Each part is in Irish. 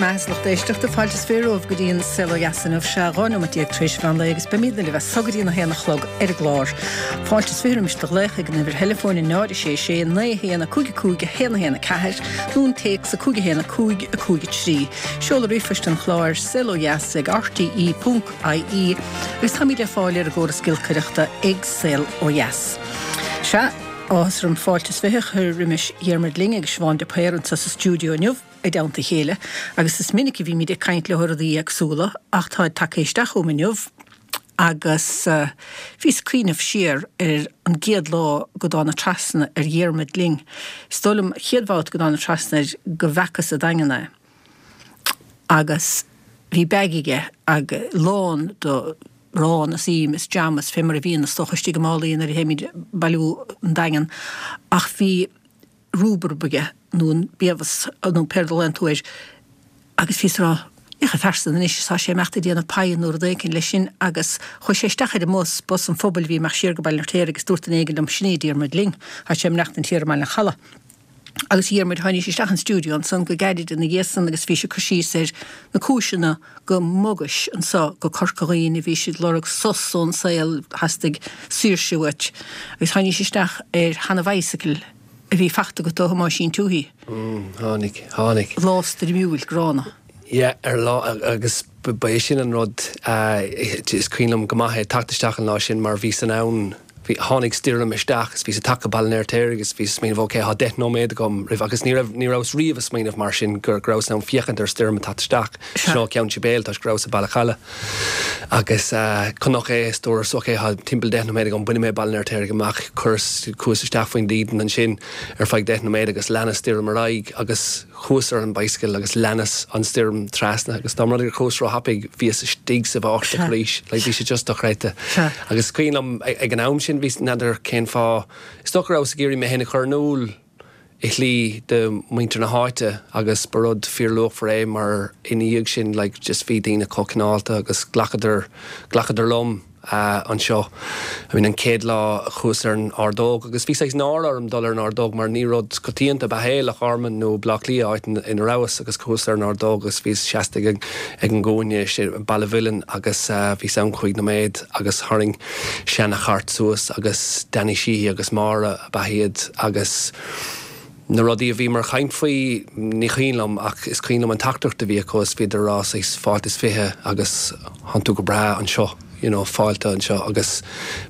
maith is lucht éisteachta, fáilte is bhur romhaibh go dtí an Saol Ó Dheas inniu, sea, 12 neomat tar éis mheán lae agus beimidne libh as so go dtí an 1 a chlog ar an gclár. Fáilte is roimis do ghlaoch ag an uimhir theileafóin 0 6 6 9 1 5 5 1 1 4 nó an téacs 5 1 5 5 3. Seoladh ríomhphoist an chláir, saolodheas ag rte ponc ie agus táimid le fáil ar an gcóras giolcaireachta ag Saol Ó Dheas. Sea, áthas orm fáilte is bhfiche a chur roimis Dhiarmuid Lyng agus Siobhán de Paor anseo sa stiúideo inniu i dteannta a chéile agus is minic a bhímid ag caint leo ar rudaí éagsúla ach táid tagtha isteach chugam inniu agus bhíos ag cuimhneamh siar ar an gcéad lá go dtána trasna ar Dhiarmuid Lyng. Is dóigh liom, chéad bhabhta go dtána trasna air go bhfeacas sa Daingean é agus bhí bag aige ag lán do arán is im is jam is fé mar a bhíonn is dócha istigh i málaí nuair a théimid bailiú an Daingean ach bhí rúbarb aige nó an biabhas nó pé rud a ghlaonn tú air agus bhíos ag rá féach an fear san anois is tá sé ag imeacht ag déanamh paidh nó rud éicint leis sin agus chuaigh sé isteach ar an mbus, bus an phobail a bhí ag imeacht siar go Baile an Fheirtéaraigh agus dúirt duine éigin liom sin é Diarmuid Lyng, tá sé ag maireachtaint thiar i mBaile an Chalaidh. Agus a Dhiarmuid, tháinís isteach an stiúideo ansan go gairid ina dhiaidh san agus bhís ag cur síos ar na cúiseanna go mbogais anso go Corca Dhuibhne, bhís ag lorg sos ón saol, theastaigh saoirse uait. Agus tháinís isteach ar sheana-bhicycle a bhí fachta agat ó Thomáisín Tuohy. Tháinig, tháinig. Lá stoirmiúil gránna. Yeah, ar lá, agus ba é sin an rud, is cuimhin liom go maith é, teacht isteach an lá sin mar bhíos in ann, bhí, tháinig stoirm isteach is bhíos ag teacht go Baile an Fheirtéaraigh agus bhíos ag smaoineamh ok, tá 10 nóiméad agam roimh, agus ní raibh, ní rabhas riamh ag smaoineamh mar sin go, go rabhas in ann féachaint ar stoirm ag teacht isteach sin ó Cheann Sibéal toisc go rabhas i Baile Chalaidh agus chonac é is dúras ok, tá timpeall 10 nóiméad agam, bainfidh mé Baile an Fheirtéaraigh amach, chuireas, chuas isteach faoin dídean ansin ar feadh 10 nóiméad agus lean an stoirm ar aghaidh agus. Chuas ar an bicycle agus leanas an stoirm trasna agus dá mba rud é gur chuas ró-thapaidh bhíos istigh sa bháisteach arís. Like bhí sé just dochreidte. Agus is cuimhin liom ag an am sin bhíos, n'fheadar cén fáth, is dócha go rabhas ag iarraidh mé féin a chur in iúl i shlí do mhuintir na háite agus ba rud fíorluachmhar é mar ina dhiaidh sin like just bhí daoine chomh cineálta agus ghlacadar, ghlacadar liom. anseo. I mean an chéad lá a chuas ar an ordóg agus bhí saghas náire orm dul ar an ordóg mar ní rud coitianta ab ea é, Loch Garman nó Baile Átha Cliath, áit ina rabhas agus chuas ar an ordóg agus bhíos seasta ag an gcúinne i Baile Mhuilinn agus bhíos ann cúig nóiméad agus tharraing seana-chairt suas agus Danny Sheehy agus Máire ab ea iad agus na rudaí a bhíomar ag caint faoi, ní cuimhin liom ach is cuimhin liom an teachtaireacht a bhí acu is bhíodar ag rá saghas fáilte is fiche agus thánn tú go breá anseo, you know, fáilte anseo agus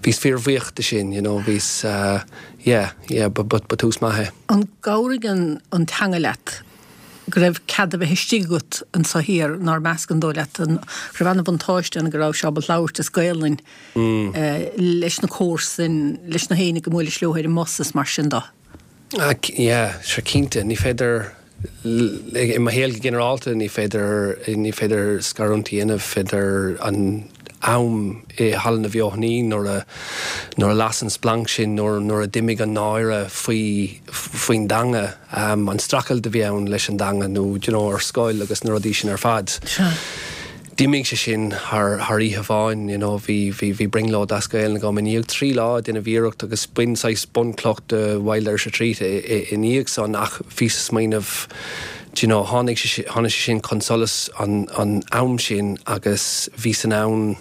bhíos fíorbhuíoch de sin, you know, bhíos yeah, yeah, ba, ba, ba tús maith é. An gcabhraigh an, an teanga leat go raibh cead a bheith istigh agat anso thiar, nár measc an dóigh leat an, go raibh ana-bhuntáiste ann go rabhais ábalta labhairt as Gaelainn leis na comharsain, leis na héinne go mbuailis leo ar an mbus is mar sin de? Yeah, sure cinnte. Ní féidir, i mo shaol go ginearálta, ní féidir, ní féidir scarúint a dhéanamh idir an am i Halla na Feothanaí nuair a, nuair a las an splanc sin, nuair, nuair a d'imigh an náire faoi, faoin dteanga, an streachailt a bhí ann leis an dteanga nó, do you know, ar scoil agus na rudaí sin ar fad. Sea. D'imigh sé sin thar oíche amháin, you know, bhí, bhí, bhí brionglóid as Gaelainn agam i ndiaidh 3 lá ag déanamh iarracht agus b'in saghas bunchloch de Wild Irish Retreat i ndiaidh san ach bhíos ag smaoineamh, do you know, tháinig sé, tháinig sé sin chun solais an, an am sin agus bhíos in ann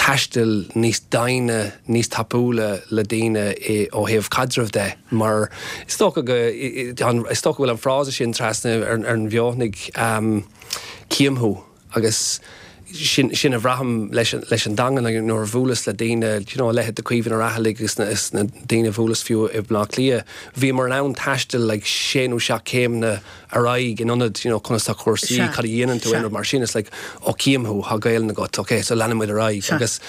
taisteal níos doimhne, níos tapúla le daoine i, ó thaobh caidrimh de mar is dócha go, is dócha go bhfuil an frása sin trasna ar, ar an bhFeothanaigh, Cím thú agus sin, sin a bhraithim leis an, leis an dteanga nuair a bhuaileas le daoine, you know, a leithéid de Caoimhín Ó Raghallaigh agus na, is na daoine a bhuaileas fiú i mBleá Cliath, bhíomar in ann taisteal like sé nó seacht céimeanna ar aghaidh in ionad, you know, conas tá cúrsaí, Sea, cad a dhéanann tú, sea. aon rud mar sin, it's like, oh cím thú, tá Gaelainn agat, ok, so leanann muid ar aghaidh Sea. agus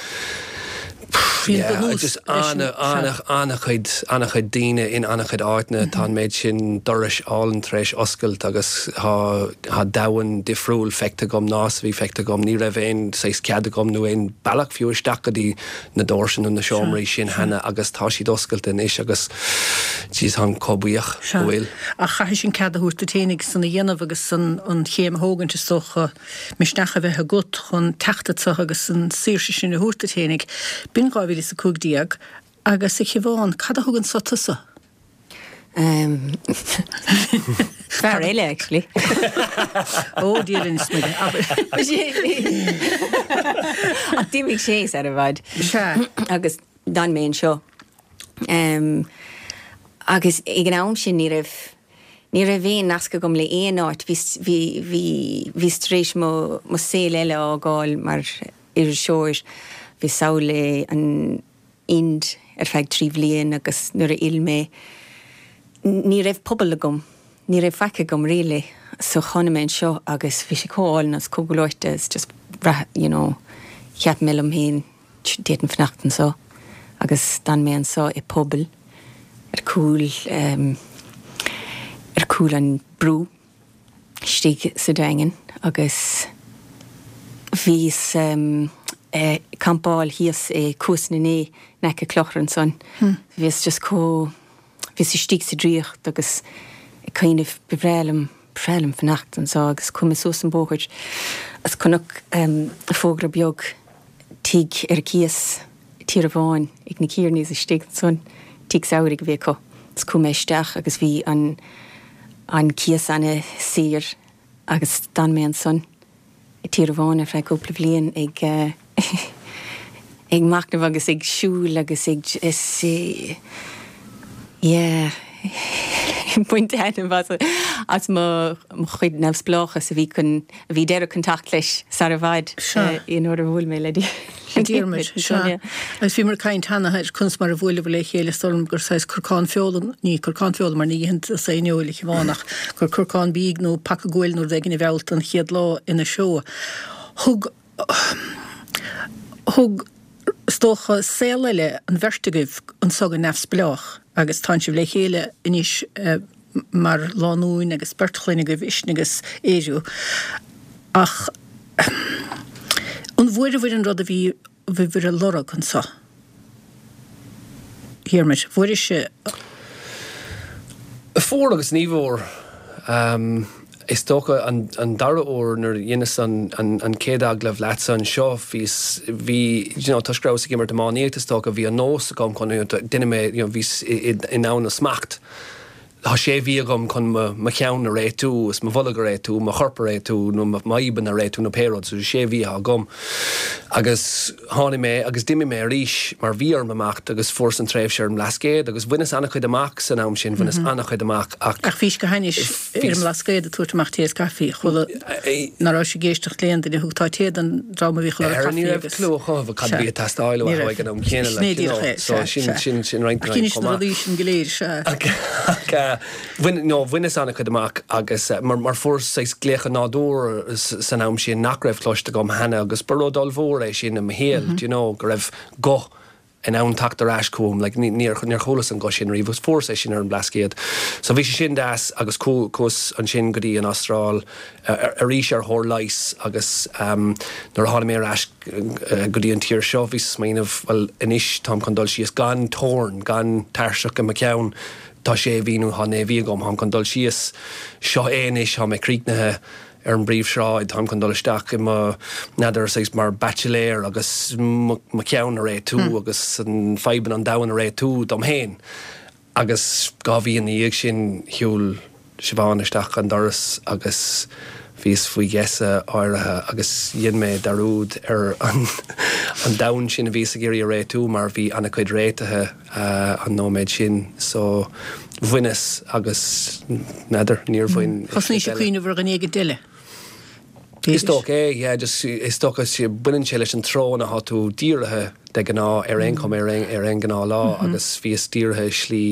Bhí an yeah, bunús just leis an, ana, sea. ana, ana-chuid, ana-chuid daoine in ana-chuid áiteanna, tá an méid sin dorais álainn tar éis oscailt agus tá, tá domhan difriúil feicthe agam ná is a bhí feicthe agam. Ní raibh aon saghas cead agam nó aon bealach fiú isteach go dtí na doirse nó na Sea, seomraí sin sea. cheana agus tá siad oscailte anois agus jeez, táim chomh buíoch Sea. go bhfuil. Ach chaithfeas an cead a thabhairt duit fhéinig san a dhéanamh agus an, an chéim a thógaint is dócha. misneach a bheith agat chun teacht anso agus an saoirse sin a thabhairt duit fhéinig. B'in 2015 agus a Shiobhán, cad a thug anso tusa? Fear eile, actually. Ó, Dia linn is Muire, abair. Ach d'imigh sé sar i bhfad. Sea. Agus d'fhan mé anseo. Agus ag an am sin ní raibh, ní raibh aon nasc agam le aon áit. Bhí, bhí, bhí, bhíos tar éis mo, mo saol eile a fhágáil mar iriseoir. Bhíos sall i an Ind ar feadh 3 bhliain agus nuair a fhill mé ní raibh pobal agam, ní raibh faic agam really so tháinig mé anseo agus bhí sé chomh álainn agus chomh gleoite is just bhraith you know cheap mé liom féin d'fhéadfainn fanacht anseo agus d'fhan mé anseo i pobal ar cúl ar cúl an brú. istigh sa Daingean agus bhíos ag campáil thíos i Cuas na nDé in aice Clochar ansan. Bhíos just chomh, bhíos istigh sa draíocht agus ag cuimhneamh ba bhreá liom, ba bhreá liom fanacht anso agus chuaigh mé suas an bóthar agus chonac fógra beag tigh ar cíos Tír Amháin ag na Kearneys istigh ansan, tigh samhraidh a bhí acu. Is chuaigh mé isteach agus bhí an an cíos ana saor agus d'fhan mé ansan i Tír Amháin ar feadh cúpla bhliain ag ag machnamh agus ag siúl agus ag is yeah ag baint taitneamh as as mo chuid neamhspleáchas a bhí chun a bhí deireadh chun teacht leis sar i bhfad nuair a bhuail mé le Diarmuid. Sea. Agus bhíomar ag caint cheana ar conas mar a bhuaileabhair le chéile, is dóigh liom gur saghas corcán feola, ní corcán feola mar ní itheann tusa aon fheoil, a Shiobhán, ach gur corcán bídh nó paca guail nó rud éigin a mheall tú an chéad lá ina seó. Thug, thug, is dócha, saol eile an bheirt agaibh anso go neamhspleách agus tánn sibh le chéile anois mar lánúin agus beirt chlainne agaibh, Uisne agus Ériu. Ach an bhfuaireabhair an rud a bhí bhíobhair a lorg anso? Dhiarmuid, bhfuairis? Fuair agus ní bhfuair. Is dócha an dara huair nuair a dheineas an chéad agallamh leatsa anseo, bhíos, bhí, you know, toisc go rabhas ag imirt iománaíocht is dócha, bhí an nós agam chun, you know, duine mé, you know, bhíos i ndomhan na smacht. Tá sé mhí agam chun mo cheann a réitiú is mo bholg a réitiú, mo chorp a réitiú nó m'fhadhbanna a réitiú nó pé rud. So sé mhí atá agam. Agus tháinig mé agus d'imigh mé arís mar bhí orm imeacht agus fuaireas an tréimhse ar an mBlascaod agus bhaineas an-chuid amach san am sin, bhaineas an-chuid amach ach. Ach bhís go hainnis ar an mBlascaod ag tabhairt amach tae is caife, chuala ná raibh ag éisteacht le aon duine, thugtá tae don dream a bhíodh ag lorg caife agus. Ní raibh clue acu cad a bhí ag teastáil uathu ag an am céanna like, you know, so sin, sin, sin roinnt den fhadhb chomh maith. Ach dheinis na rudaí sin go léir, sea. Ach bhain, no, bhaineas an-chuid amach agus mar, mar fuaireas saghas glaoch an nádúir san am sin nach raibh cloiste agam cheana agus ba rud ollmhór é sin i mo shaol, do you know, go raibh guth in ann teacht ar ais chugam, like, ní, níor, níor chualas an guth sin riamh agus fuaireas é sin ar an mBlascaod. So bhí sé sin deas agus chuas ansin go dtí an Astráil arís ar thóir leighis agus nuair a tháinig mé ar ais go dtí an tír seo bhíos ag smaoineamh, bhuel anois táim chun dul síos gan teorainn, gan tairseach i mo cheann, tá sé mhí nó tá naoi mhí agam, táim chun dul síos, seo é anois, tá mé críochnaithe ar an bpríomhshráid, táim chun dul isteach i mo, n'fheadar, saghas mar baitsiléir agus mo cheann a réitiú agus an fadhbanna an domhain a réitiú dom féin. Agus 2 mhí ina dhiaidh sin shiúil Siobhán isteach an doras agus bhíos faoi gheasa áirithe agus dhein mé dearúd ar an domhan sin a bhíos ag iarraidh a réitiú mar bhí an-chuid réitithe an nóiméad sin. So bhaineas agus n'fheadar, níor bhain Thosnaís ag cuimhneamh ar dhuine éigint eile. Is dócha é, yeah, just is dócha baineann sé leis an treo ina thá tú dírithe de ghnáth ar aon chuma ar aon ghnáthlá agus bhíos dírithe i slí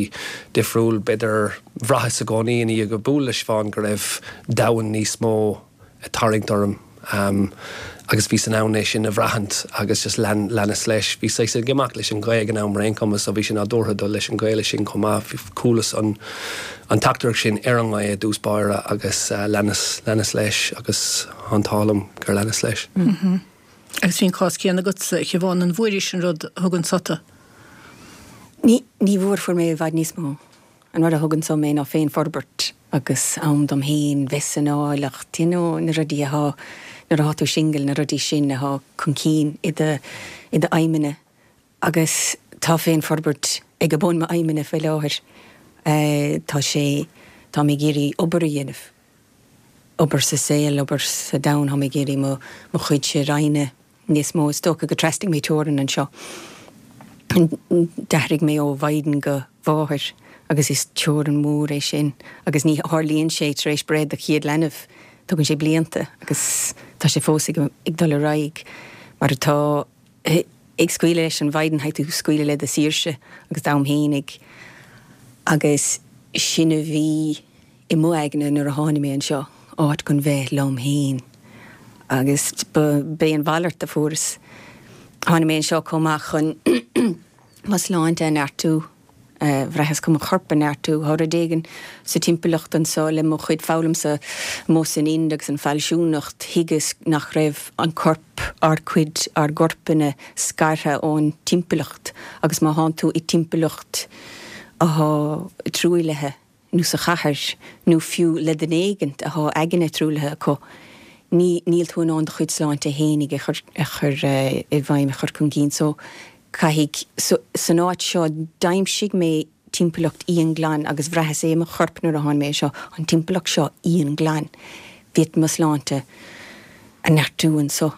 difriúil. B'fhéidir, bhraitheas i gcónaí i ndiaidh bualadh le Siobhán go raibh domhan níos mó ag tarraingt orm agus bhíos in ann é sin a bhraithint agus just lean, leanas leis. Bhíos saghas ag imeacht leis an ghaoth ag an am ar aon chuma so bhí sé nádúrtha dul leis an ghaoth sin chomh maith. Chualas an. an teachtaireacht sin ar an ngaoth i dtús báire agus leanas, leanas leis agus tá an t-ádh liom gur leanas leis. Agus bhí an cás céanna agatsa, a Shiobhán, an bhfuairis an rud a thug anso tú? Ní, ní bhfuair, fuair mé i bhfad níos mó. An rud a thug anso mé ná féinfhorbairt agus am dom féin, bheith san áilleacht, you know, na rudaí athá, nuair athá tú singil, na rudaí sin athá chun cinn i do, i do aidhmeanna. Agus tá féinfhorbairt ag bun m'aidhmeanna faoi láthair. Tá sé. Tá mé ag iarraidh obair a dhéanamh, obair sa saol, obair sa domhan, tá mé ag iarraidh mo mo chuidse a roinnt níos mó. Is dócha gur trasnaigh mé teorainn anseo. D'athraigh mé ó mhaighdean go mháthair agus is teorainn mhór é sin agus ní tharlaíonn sé tar éis breith do chéad leanbh, tugann sé blianta agus tá sé fós ag ag dul ar aghaidh mar atá. Ag scaoileadh leis an mhaighdean caithfidh tú scaoileadh le do saoirse agus d'am fhéinig agus sin a bhí i mo aigne nuair a tháinig mé anseo, áit chun bheith liom fhéin agus b'é an mhalairt a fuaireas. Tháinig mé anseo chomh maith chun mo shláinte a neartú. Bhraitheas chun mo chorp a neartú. Tá rud éigin sa timpeallacht anso le mo chuid foghlaim-sa amuigh san Ind agus an fealsúnacht, thuigeas nach raibh an corp, ár gcuid, ár gcorpanna scartha ón timpeallacht agus má thánn tú i dtimpeallacht athá truaillithe, nó sa chathair, nó fiú le duine éigint athá aigne truaillithe acu, ní, níl tú in ann do chuid sláinte fhéinig a chur, a chur i bhfeidhm, a chur chun cinn. So, caithfidh, so, san áit seo, d'aimsigh mé timpeallacht íonghlan agus bhraitheas é i mo chorp nuair a tháinig mé anseo, an timpeallacht seo íonghlan. Bhí mo shláinte a neartú anso.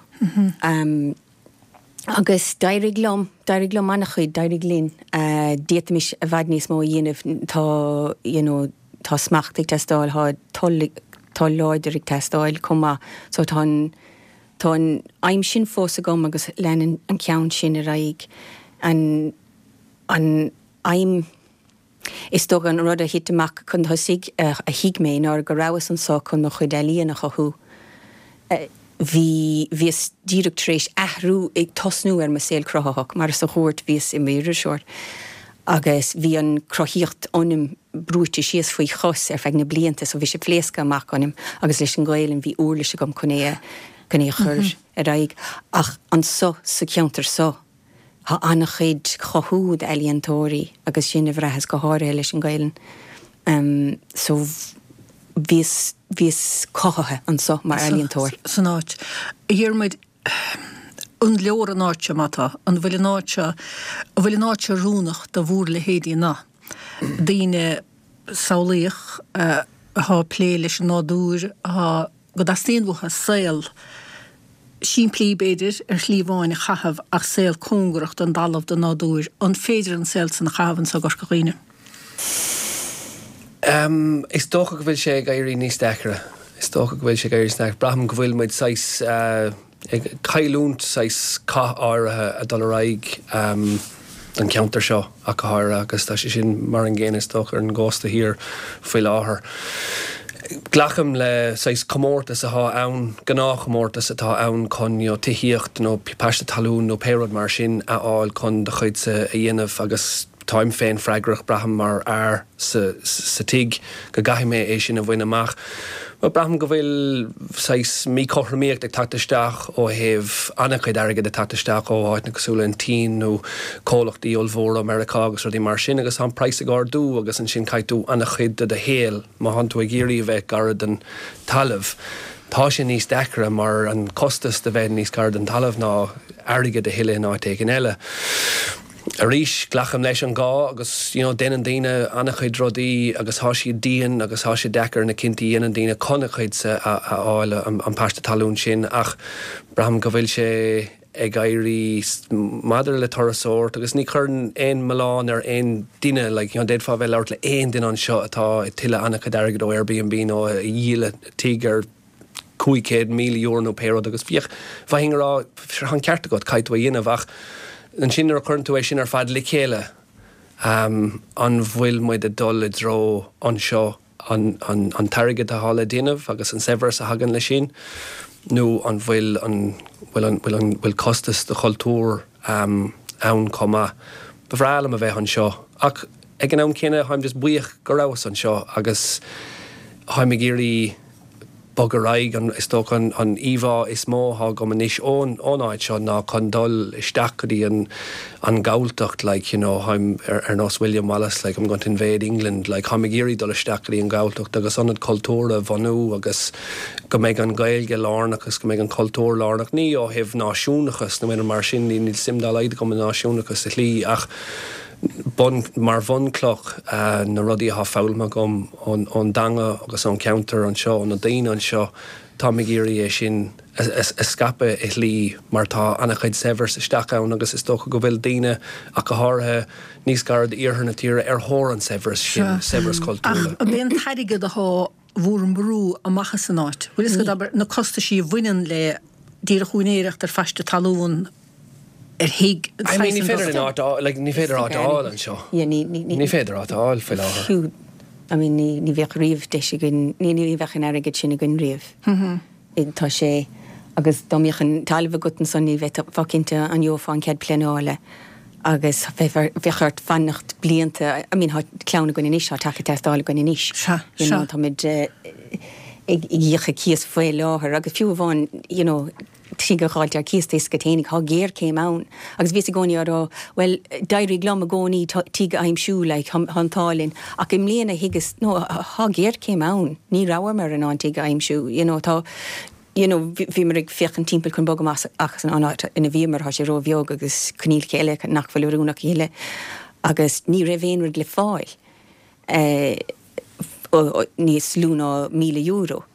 Agus d'éirigh liom, d'éirigh liom an-chuid, d'éirigh linn. D'fhéadfaimis i bhfad níos mó a dhéanamh, tá, you know, tá smacht ag teastáil, tá toil, toil láidir ag teastáil chomh maith. So tá an, tá an aidhm sin fós agam agus leanann an ceann sin ar aghaidh. An, an aidhm. Is dócha an rud a thit amach chun tosaigh a thuig mé ná go rabhas anso chun mo chuid ealaíon a chothú. Bhí, bhíos díreach tar éis athrú, ag tosnú ar mo saol cruthaitheach, mar sa chúirt bhíos i m'iriseoir agus bhí an cruthaíocht ionam brúite síos faoi chos ar feadh na blianta so bhí sé pléasctha amach ionam agus leis an Ghaelainn bhí uirlis agam chun é a, chun é a chur ar aghaidh. Ach anso sa cheantar so, Tá an-chuid chothú d'ealaíontóirí agus sin a bhraitheas go háirithe leis an Ghaelainn. So bhíos, bhíos cothaithe anso mar ealaíontóir. San áit. A Dhiarmuid, an leor an áit seo má tá? An bhfuil an áit seo, an bhfuil an áit seo oiriúnach do bhúr leithéidí na daoine samhlaíoch athá ag plé leis an nádúr, athá go dteastaíonn uathu saol simplí, b'fhéidir, ar shlí amháin a chaitheamh ach saol cóngarach don dtalamh, don nádúr. An féidir an saol san a chaitheamh anso i gCorca Dhuibhne? Is dócha go bhfuil sé ag éirí níos deacra. Is dócha go bhfuil sé ag éirí níos deacra. Braithim go bhfuil muid saghas ag cailliúint saghas cath áirithe ag dul ar aghaidh don cheantar seo ach go háirithe agus tá sé sin mar an gcéanna is dócha ar an gcósta thiar faoi láthair. Glacaim le saghas comórtas atá ann, gnáthchomórtas atá ann chun you know tithíocht nó paiste talún nó pé rud mar sin a fháil chun do chuidse a dhéanamh agus táim féin freagrach, braithim, mar fhear sa sa tigh go gcaithfidh mé é sin a bhain amach. But braithim go bhfuil saghas míchothromaíocht ag teacht isteach ó thaobh an-chuid airgid ag teacht isteach ó áiteanna cosúil le an tSín nó comhlachtaí ollmhóra ó Meiriceá agus rudaí mar sin agus tá an praghas ag ardú agus ansin caithfidh tú an-chuid de do shaol má thánn tú ag iarraidh a bheith gar don talamh tá sé níos deacra mar an costas de bheith níos gaire don talamh ná airgead a thuilleadh in áit éigin eile. Arís, glacaim leis an gá agus you know déanann daoine an-chuid rudaí agus tá siad dian agus tá sé deacair na cinntí a dhéanann daoine chun a chuidse a fháil, an paiste talún sin ach braithim go bhfuil sé ag éirí maidir le turasóireacht agus ní chuireann aon mhilleán ar aon duine like you know d'fhéadfá a bheith ag labhairt le aon duine anseo atá ag tuilleadh an-chuid airgid ó Airbnb nó a dhíol tigh ar €500,000 nó pé rud agus bhíodh, bheinn ag rá, tá an ceart agat, caithfidh tú a dhéanamh ach ansin nuair a chuireann tú é sin ar fad le chéile, an bhfuil muid ag dul i dtreo anseo an, an, an t-airgead atá le déanamh agus an saibhreas a thagann leis sin nó an bhfuil an, bhfuil an, bhfuil an, bhfuil costas do chultúr ann chomh maith. Ba bhreá liom a bheith anseo ach ag an am céanna táim just buíoch go rabhas anseo agus táim ag iarraidh bog ar aghaidh. Is dócha an íomhá is mó atá agam anois ón áit seo ná chun dul isteach go dtí an an Ghalltacht like you know táim ar nós William Wallace like I'm going to invade England like táim ag iarraidh dul isteach go dtí an Ghalltacht agus ionad cultúrtha a bhunú agus go mbeidh an Ghaeilge lárnach agus go mbeidh an cultúr lárnach ní ó thaobh náisiúnachas nó aon rud mar sin níl suim dá laghad agam i náisiúnachas sa shlí ach. Bun, mar bhunchloch, na rudaí atá foghlamtha agam ón dteanga agus ón cheantar anseo, ó na daoine anseo, táim ag iarraidh é sin a scaipeadh i shlí mar tá an-chuid saibhreas isteach ann agus is dócha go bhfuil daoine, ach go háirithe níos gaire d'iarthar na tíre, ar thóir an saibhreas sin, saibhreas cultúrtha. Ach ab é an t-airgead atá bhur mbrú amach as an áit? Bhfuil fhios agat, abair, na costaisí a bhaineann le díreach úinéireacht ar phaiste talún, ar thigh, I mean, ní féidir linn áit a fháil, like, ní féidir áit a fháil anseo. Yeah, ní, ní, ní. Ní féidir áit a fháil faoi láthair. Fiú, I mean, ní, ní bheadh riamh deis againn, ní, ní bheadh an airgead sin againn riamh. Tá sé, agus dá mbeadh an talamh agat ansan ní bheifeá cinnte an gheofá an cead pleanála agus bheadh, bheadh ort fanacht blianta, I mean, tá clann againn anois, tá teach ag teastáil againn anois. Sea, You know, sea. táimid ag íoc cíos faoi láthair agus fiú amháin, you know, tigh a dh'fháilt ar cíos tá fhios agat fhéinig, tá géarchéim ann agus bhíos i gcónaí á rá, bhuel, d'éirigh liom i gcónaí tigh a aimsiú, like, tá an t-ádh linn, ach i mbliana thuigeas, no, tá géarchéim ann, ní rabhamar in ann tigh a aimsiú, you know, tá, you know, bhíomar ag féachaint timpeall chun bogadh amach as an áit ina bhíomar, tá sé ró-bheag agus coinníollacha eile nach bhfuil oiriúnach a thuilleadh agus ní raibh aon rud le fáil eh, níos lú ná €1,000.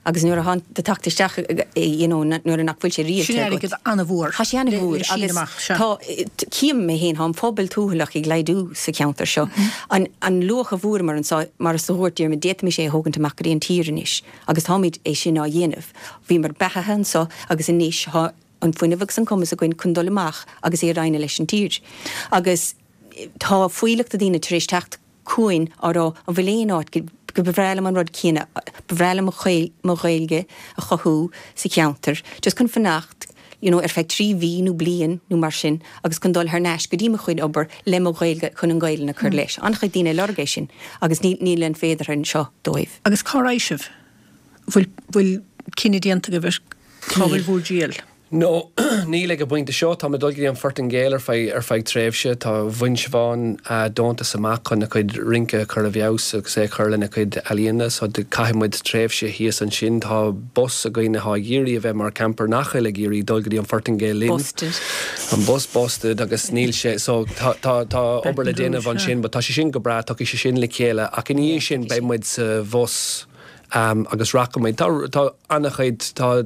Agus nuair atá do theacht isteach you know nuair nach bhfuil sé rialta Sin agat. airgead an-mhór Tá sé an-mhór le síneadh agus amach, sea. tá, cím mé féin, tá an phobal tuathalach ag laghdú sa cheantar seo. An, an luach a bhfuaireamar anseo, mar is a dhúirt Diarmuid, d'fhéadfaimis é a thógaint amach go dtí an tír anois agus táimid é sin á dhéanamh. Bhíomar beathaithe anseo agus anois tá an fuinneamh agus an cumas againn chun dul amach agus é a roinneadh leis an tír. Agus tá fuílleach de daoine tar éis teacht chugainn á rá an bhfuil aon áit go ba bhreá liom an rud céanna, ba bhreá liom mo Ghaeilge a chothú sa cheantar, just chun fanacht you know ar feadh 3 mhí nó bliain nó mar sin agus chun dul thar n-ais go dtí mo chuid obair le mo Ghaeilge chun an Ghaelainn a chur leis. An-chuid daoine ag lorg é sin agus níl an féideartha anseo dóibh. Agus cá raghaidh sibh? Bhfuil bhfuil cinneadh déanta agaibh ar cá bhfuil bhur dtriall? No, níl ag an bpointe seo. Táim ag dul go dtí an Phortaingéil ar feadh ar feadh tréimhse. Tá bhain Siobhán deontas amach chun a cuid rince a chur i bhfeabhas agus é a chur lena cuid ealaíona so caithfidh muid tréimhse thíos ansin. Tá bus againn atá ag iarraidh a bheith mar camper nach bhfuil ag iarraidh dul go dtí an Phortaingéil linn. Busted. An bus busted agus níl sé so tá tá tá obair le déanamh ansin but tá sé sin go breá, tiocfaidh sé sin le chéile ach ina dhiaidh sin beidh muid sa bhus. Agus rachaidh muid. Tá, tá an-chuid, tá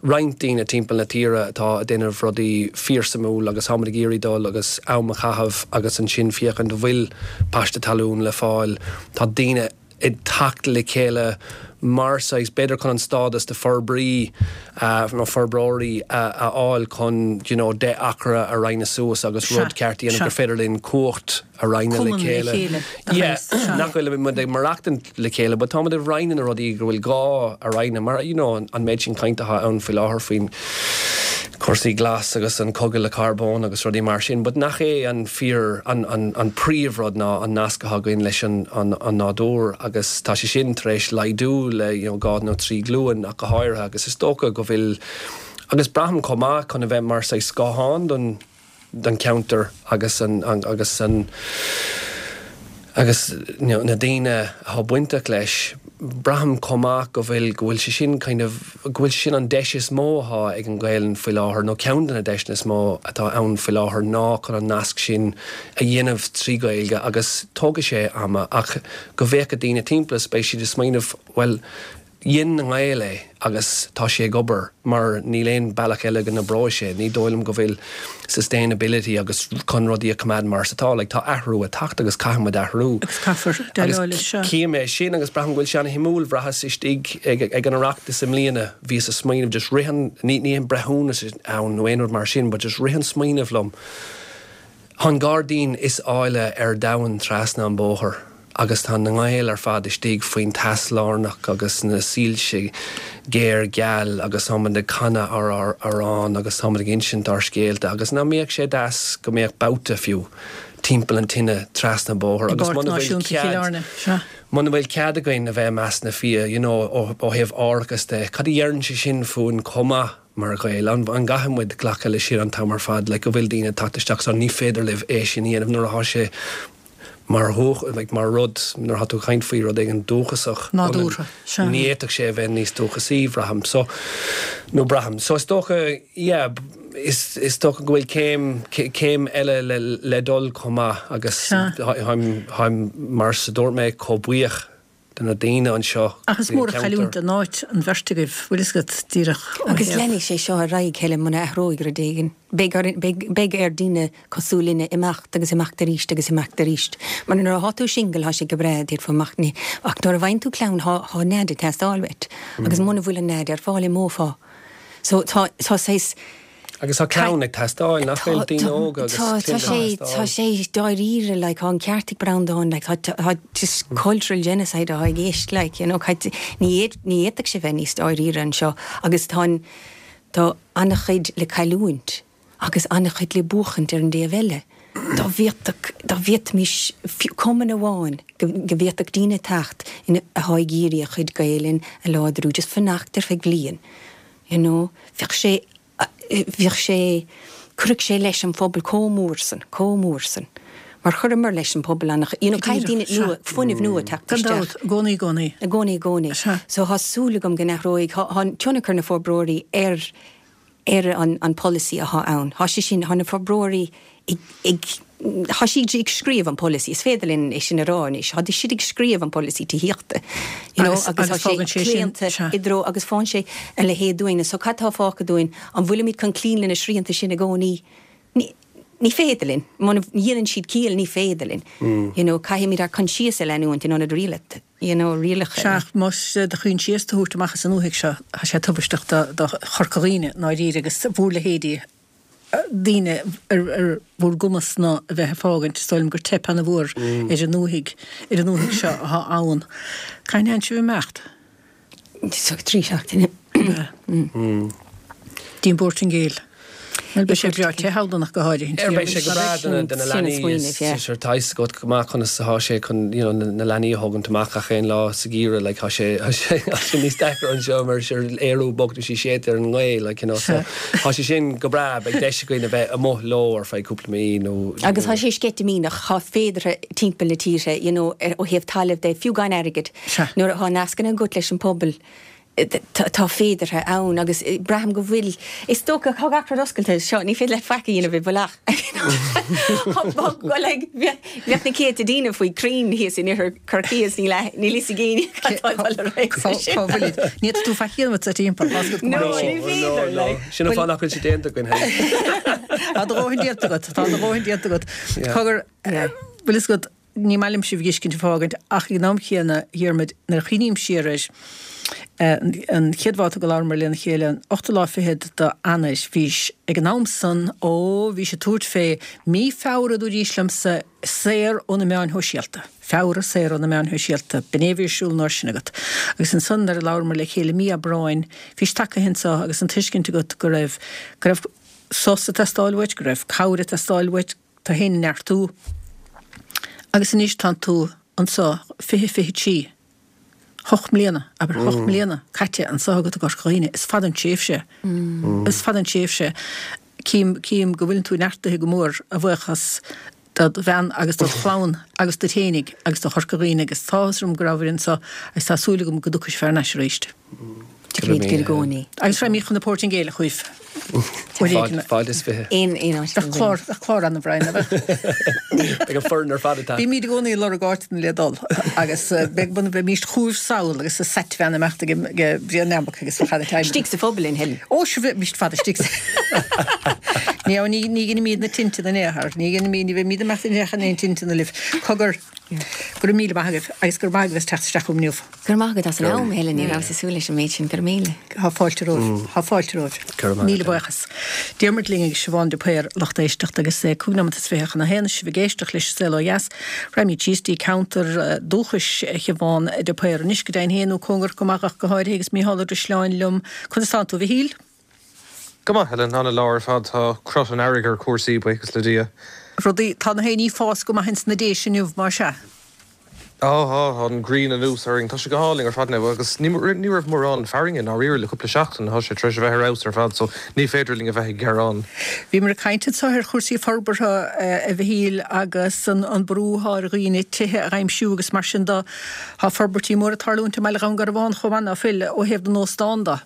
roinnt daoine timpeall na tíre atá ag déanamh rudaí fíorsuimiúil agus táimid ag iarraidh dul agus am a chaitheamh agus ansin féachaint an bhfuil paiste talún le fáil. Tá daoine ag teacht le chéile mar saghas, b'fhéidir chun an stádas de forbraí nó forbróirí a fháil chun you know 10 acra a roinneadh suas agus rud ceart a dhéanamh gur féidir linn cumhacht a roinneadh le chéile. Yeah, nach bhfuil muid ag maireachtaint le chéile, but táimid ag roinneadh na rudaí go bhfuil gá a roinneadh, mar you know an méid sin cainte atá ann faoi láthair faoin cúrsaí glas agus an cogadh le carbón agus rudaí mar sin, but nach é an fíor, an, an, an príomhrud ná an nasc atá againn leis an, an, an nádúr agus tá sé sin tar éis laghdú le you know dhá nó trí glúin ach go háirithe agus is dócha go bhfuil, agus braithim chomh maith chun a bheith mar saghas scáthán don, don cheantar agus an agus an agus na daoine atá bainteach leis, braithim chomh maith go bhfuil go bhfuil sé sin kind of go bhfuil sé sin an deis is mó atá ag an Ghaelainn faoi láthair nó ceann de na deiseanna is mó atá ann faoi láthair ná chun an nasc sin a dhéanamh trí Ghaeilge agus tógfaidh sé ama ach go bhféachfaidh daoine timpeall is beidh siad ag smaoineamh bhuel Dhein na Gaeil é agus tá sé ag obair mar níl aon bealach eile go n-oibreoidh sé. Ní dóigh liom go bhfuil sustainability agus chun rudaí a choimeád mar is atá. Like tá athrú ag teacht agus caithfidh muid athrú. Agus caithfear déileáil leis seo. Agus cím é sin agus braithim go bhfuil sé ana-shuimiúil. Bhraitheas istigh ag ag an Oireachtas i mbliana, bhíos ag smaoineamh just rith an, ní ní aon breithiúnas ann nó aon rud mar sin but just rith an smaoineamh liom, Tá an gairdín is áille ar domhan trasna an bóthar. Agus tá na Gaeil ar fad istigh faoin teas lárnach agus na soilse géar geal agus táimid ag canadh ár amhrán agus táimid ag insint ár scéalta agus nach mbeadh sé deas go mbeadh babhta fiú timpeall an tine trasna an bóthar agus muna bhfuil cead muna bhfuil cead againn a bheith i measc na fia you know ó thaobh árachas de cad a dheireann sé sin fúinn chomh maith mar Ghaeil? An gcaithfidh muid glacadh leis sin an t-am ar fad like go bhfuil daoine ag teacht isteach so ní féidir libh é sin a dhéanamh nuair atá sé. Mar dhúch, like, mar rud, nuair atá tú ag caint faoi rud éigin dúchasach, Nádúrtha, sea. Ní fhéadfadh sé a bheith níos dúchasaí, bhraithim. So, nó braithim. So is dócha, yeah, is, is dócha go bhfuil céim, céim eile le, le dul chomh maith agus Sea. táim, táim, mar a dúirt mé, chomh buíoch de na daoine anseo Ach is mór an chailliúint don áit an bheirt agaibh, bhfuil fhios agat, díreach ó Agus thaobh. leanfaidh sé seo ar aghaidh, Helen, muna athróidh rud éigin. Beidh orainn, beidh, beidh ar daoine cosúil linne imeacht agus imeacht arís agus imeacht arís. Mar nuair athá tú single thá sé go breá, d'fhéadfá imeacht, ní, ach nuair a bhfaigheann tú clann thá, thá nead ag teastáil uait. Agus muna bhfuil an nead ar fáil imeofá. So tá, tá saghas. Agus tá clann ag teastáil, nach bhfuil? Daoine óga agus cliaint ag teastáil. Tá sé dáiríre, like, tá an ceart ag Breandán, like, tá, tá just cultural genocide atá i gceist, like, you know, ní ní fhéadfadh sé bheith níos dáiríre anseo agus tá an, tá an-chuid le cailliúint agus an-chuid le buachaint ar an dtaobh eile. Dá bhféadfadh, dá bhféadfaimis fiú cumann amháin go, go bhféadfadh daoine teacht ina, atá ag iarraidh a chuid Gaelainn a láidriú, just fanacht ar feadh bliain, you know, bheadh sé, bheadh sé, chuirfeadh sé leis an phobal chomh mór san, chomh mór san. Mar chuireamar leis an phobal an, you know, caithfidh daoine nua, fuinneamh nua teacht isteach. Gan dabht, i gcónaí, i gcónaí. I gcónaí, i gcónaí. Sea. So tá súil agam go n-athróidh, tá, tá tionchar na forbróirí ar, ar an, an polasaí athá ann. Tá sé sin, tá na forbróirí ag, ag, tá siad ag scríobh an polasaí, is féidir linn é sin a rá anois, tá siad ag scríobh an polasaí tithíochta, you know, Agus, agus agus tá sé fágann sé sin, claonta sea. i dtreo, agus fágann sé a leithéid dúinn. So cad tá fágtha dúinn? An bhfuilimid chun cloí le na srianta sin i gcónaí? Ní, ní féidir linn. Muna ndéanann siad ciall, ní féidir linn. You know, caithfimid ár coinsias a leanúint in ionad rialat, you know, rialacha. Sea, ach más do choinsias do thabhairt amach as an ndúthaigh seo, tá sé tubaisteach do, do Chorca Dhuibhne, i ndáiríre, agus bhur leithéidí. daoine ar bhur gcumas-na a bheith ag fágaint, is dóigh liom gur teip ana-mhór ar an ndúthaigh, ar an ndúthaigh seo athá ann. Cathain a théann sibh ag imeacht? 3 seachtaine. Dtí an bPortaingéil. Bhuel, beidh sé breá te thall ach go háirithe. Ar beidh sé go breá do na leanaí is sure tá fhios agat go maith conas atá sé chun you know na leanaí a thógaint amach gach aon lá sa gheimhreadh like tá sé tá sé tá sé níos deacra anseo mar sure Ériu bog nó sí séidte ar an ngaoth like you know so tá sé sin go breá beidh deis againn a bheith amuigh leo ar feadh cúpla mí nó Agus tá sé sceitimíneach, tá féideartha timpeall na tíre you know ó thaobh talaimh de fiú gan airgead nuair atá nascanna agat leis an pobal tá féideartha ann agus braithim go bhfuil, is dócha, tá gach rud oscailte seo, ní féidir leat faic a dhéanamh i bhfolach. Like, bheadh na céadta daoine faoi crainn thíos in oirthear Chorcaí is níl níl fhios ag éinne cad tá ag dul ar aghaidh sa sin. Cá bhfuilid? Ní fhéadfaidh tú faic a dhéanamh sa timpeall, tá fhios agat go maith é sin. No, ní féidir, like. Sin an fáth nach bhfuil sé déanta againn féin. Tá do dhóthain déanta agat, tá do dhóthain déanta agat. Cogar, bhfuil fhios agat, Ní maith liom sibh a dh'fheiscint ag fágaint, ach ag an am chéanna, a Dhiarmaid, nuair a chuimhním siar air, an chéad bhabhta go labhramar lena chéile, an ochtú lá fichead d'Eanáir, bhís ag an am san, ó, bhís ag tabhairt fé mí Feabhra, a dúraís liomsa, saor ó na meáin shóisialta. Feabhra, saor ó na meáin shóisialta. B'in é a bhí ar siúl an uair sin agat. Agus ansan, nuair a labhramar le chéile mí Aibreáin, bhís tagtha anso agus an tuiscint agat go raibh, go raibh sos ag teastáil uait, go raibh cabhair ag teastáil uait, tú féin a neartú. Agus anois tánn tú anso, 2023, hocht mbliana, abair hocht mbliana caite anso agat i gCorca Dhuibhne. Is fada an tréimhse. Is fada an tréimhse. Cím, cím go bhfuileann tú neartaithe go mór, a bhuíochas dod bhean agus dod chlann agus duit fhéinig agus do Chorca Dhuibhne agus tá áthas orm go rabhaibh anso agus tá súil agam go dtiocfaidh sibh thar n-ais arís. Tiocfaimid i gcónaí. Agus raghaimid chun na Portaingéile chugaibh. Fáilte is 20. Aon aon áit. Bheadh clár, bheadh clár ann a Bhrian, nach mbeadh? Beidh an foireann ar fad ag teacht. Bímid i gcónaí ag lorg áiteanna le dul agus beidh, bheimíst chugaibh sall agus sa sat-van imeacht ag Brian Neambac agus bheadh ana time. Istigh sa phuball in Helen. Ó sure bheimíst fada istigh sa Ní, ní, ní ghinimíd na tinte na n-aothar, ní ghinimíd, ní bheimíd imeacht in aon tinte na libh. Cogar, go raibh míle maith agaibh agus go raibh maith agaibh as teacht isteach chugam inniu. Go raibh maith agat as an am, a Helen, ní rabhas ag súil leis an méid sin. Go raibh míle. Tá fáilte romhaibh. Tá fáilte romhaibh. Míle buíochas. Diarmuid linn agus Siobhán de Paor, lucht éisteachta, agus é cúig nóimeat is fiche chun a haon, sibh ag éisteacht leis an Saol Ó Dheas. Raghaimid síos dtí ceantar dúchais Shiobhán de Paor anois, go deimhin féin, nó cóngarach go maith ach go háirithe, agus Mícheál Ó Drisleáin liom. Conas tánn tú, a Mhichíl? Go maith, Helen. Ana-lá ar fad. Tá crot an earraigh ar chúrsaí, buíochas le Dia. Rudaí, tá na héiní ag fás go maith ins na Déise inniu, más ea? Á, tá, tá an ghrian anuas orainn. Tá sé go hálainn ar fad now agus ní ní raibh mórán fearthainne i ndáiríre le cúpla seachtain. Tá sé tar éis a bheith ar fheabhas ar fad so ní féidir linn a bheith ag gearán. Bhíomar ag caint anseo ar chúrsaí forbartha, a Mhichíl, agus an brú atá ar dhaoine tithe a aimsiú agus mar sin de. Tá forbairtí móra ag tarlúint i mbaile Dhún Garbhán chomh maith, ná fuil, ó thaobh na n-óstán de?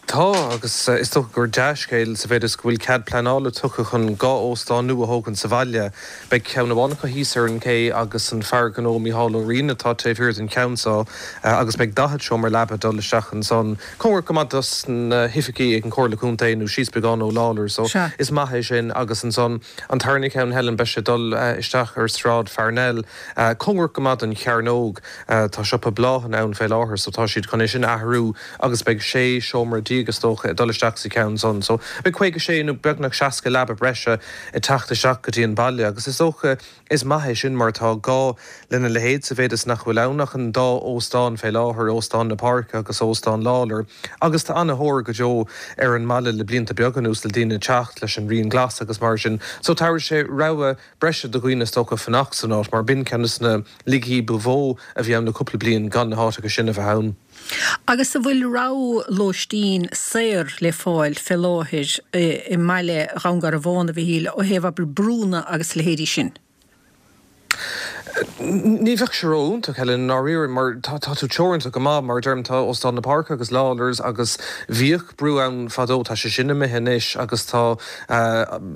Tá, agus is dócha gur dea-scéal sa mhéid is go bhfuil cead pleanála tugtha chun 2 óstán nua a thógaint sa bhaile. Beidh ceann amháin acu thíos ar an gcé agus an fear gnó Micheál Ó Riain atá taobh thiar den cheann seo agus beidh 40 seomra leaba ag dul isteach ansan, cóngarach go maith dos na hoifigí ag an Chomhairle Contae nó síos beagán ó Lawlor's so is maith é sin agus ansan an tarna ceann, Helen, beidh sé ag dul isteach ar Sráid Pharnell, cóngarach go maith don Chearnóg. Tá siopa bláthanna ann fé láthair so tá siad chun é sin a athrú agus beidh 16 seomra is dócha ag dul isteach sa cheann san. So beidh 56 nó beagnach 60 leaba breise ag teacht isteach go dtí an baile agus is dócha is maith é sin mar tá gá lena leithéid sa mhéid is nach bhfuil ann ach an dá óstán fé láthair, Óstán na Páirce agus Óstán Lawlor agus tá ana-thóir go deo ar an mbaile le blianta beaga anuas le daoine teacht leis an rian glas agus mar sin. So tabharfaidh sé rogha breise do dhaoine is dócha fanacht san áit mar b'in ceann de na laigí ba mhó a bhí ann le cúpla bliain gan na háiteacha sin a bheith ann. Agus an bhfuil rogha lóistín saor le fáil fé láthair i mbaile Dhún Garbhán, a Mhichíl, ó thaobh, abair, brúnna agus a leithéidí sin? Ní bheadh sé ró-iontach, Helen, i ndáiríre, mar tá tú teoranta go maith. Mar a deirim, tá Óstán na Páirce agus Lawlor's agus bhíodh brú ann fadó, tá sé sin imithe anois agus tá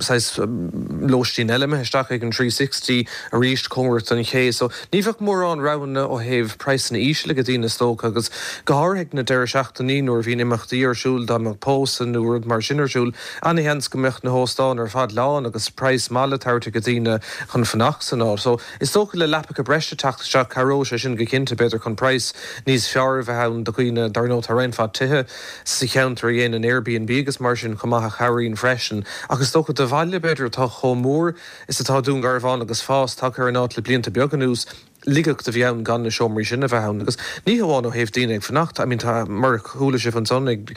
saghas lóistín eile imithe isteach ag an 360 arís, cóngarach don ché. So, ní bheadh mórán roghanna ó thaobh praghsanna íseal ag daoine is dócha agus go háirithe ag na deireadh seachtainí nuair a bhíonn imeachtaí ar siúl, dá mbeadh pósadh nó rud mar sin ar siúl, Ana-sheans go mbeadh na hóstáin ar fad lán agus praghas maith le tabhairt ag daoine chun fanacht san áit. So, is dócha le leapacha breise teacht isteach, cabhróidh sé sin go cinnte, b'fhéidir chun praghas níos fearr a bheith ann do dhaoine. Dar ndóigh, tá roinnt mhaith tithe sa cheantar a dhéanann Airbnb agus mar sin chomh maith a chabhraíonn freisin. Ach is dócha do bhaile, b'fhéidir, atá chomh mór is atá Dún Garbhán agus fás tagtha ar an áit le blianta beaga anuas, laigeacht a bhí ann gan na seomraí sin a bheith ann. Agus ní hamháin ó thaobh daoine ag fanacht, I mean tá, mar a chuala sibh ansan ag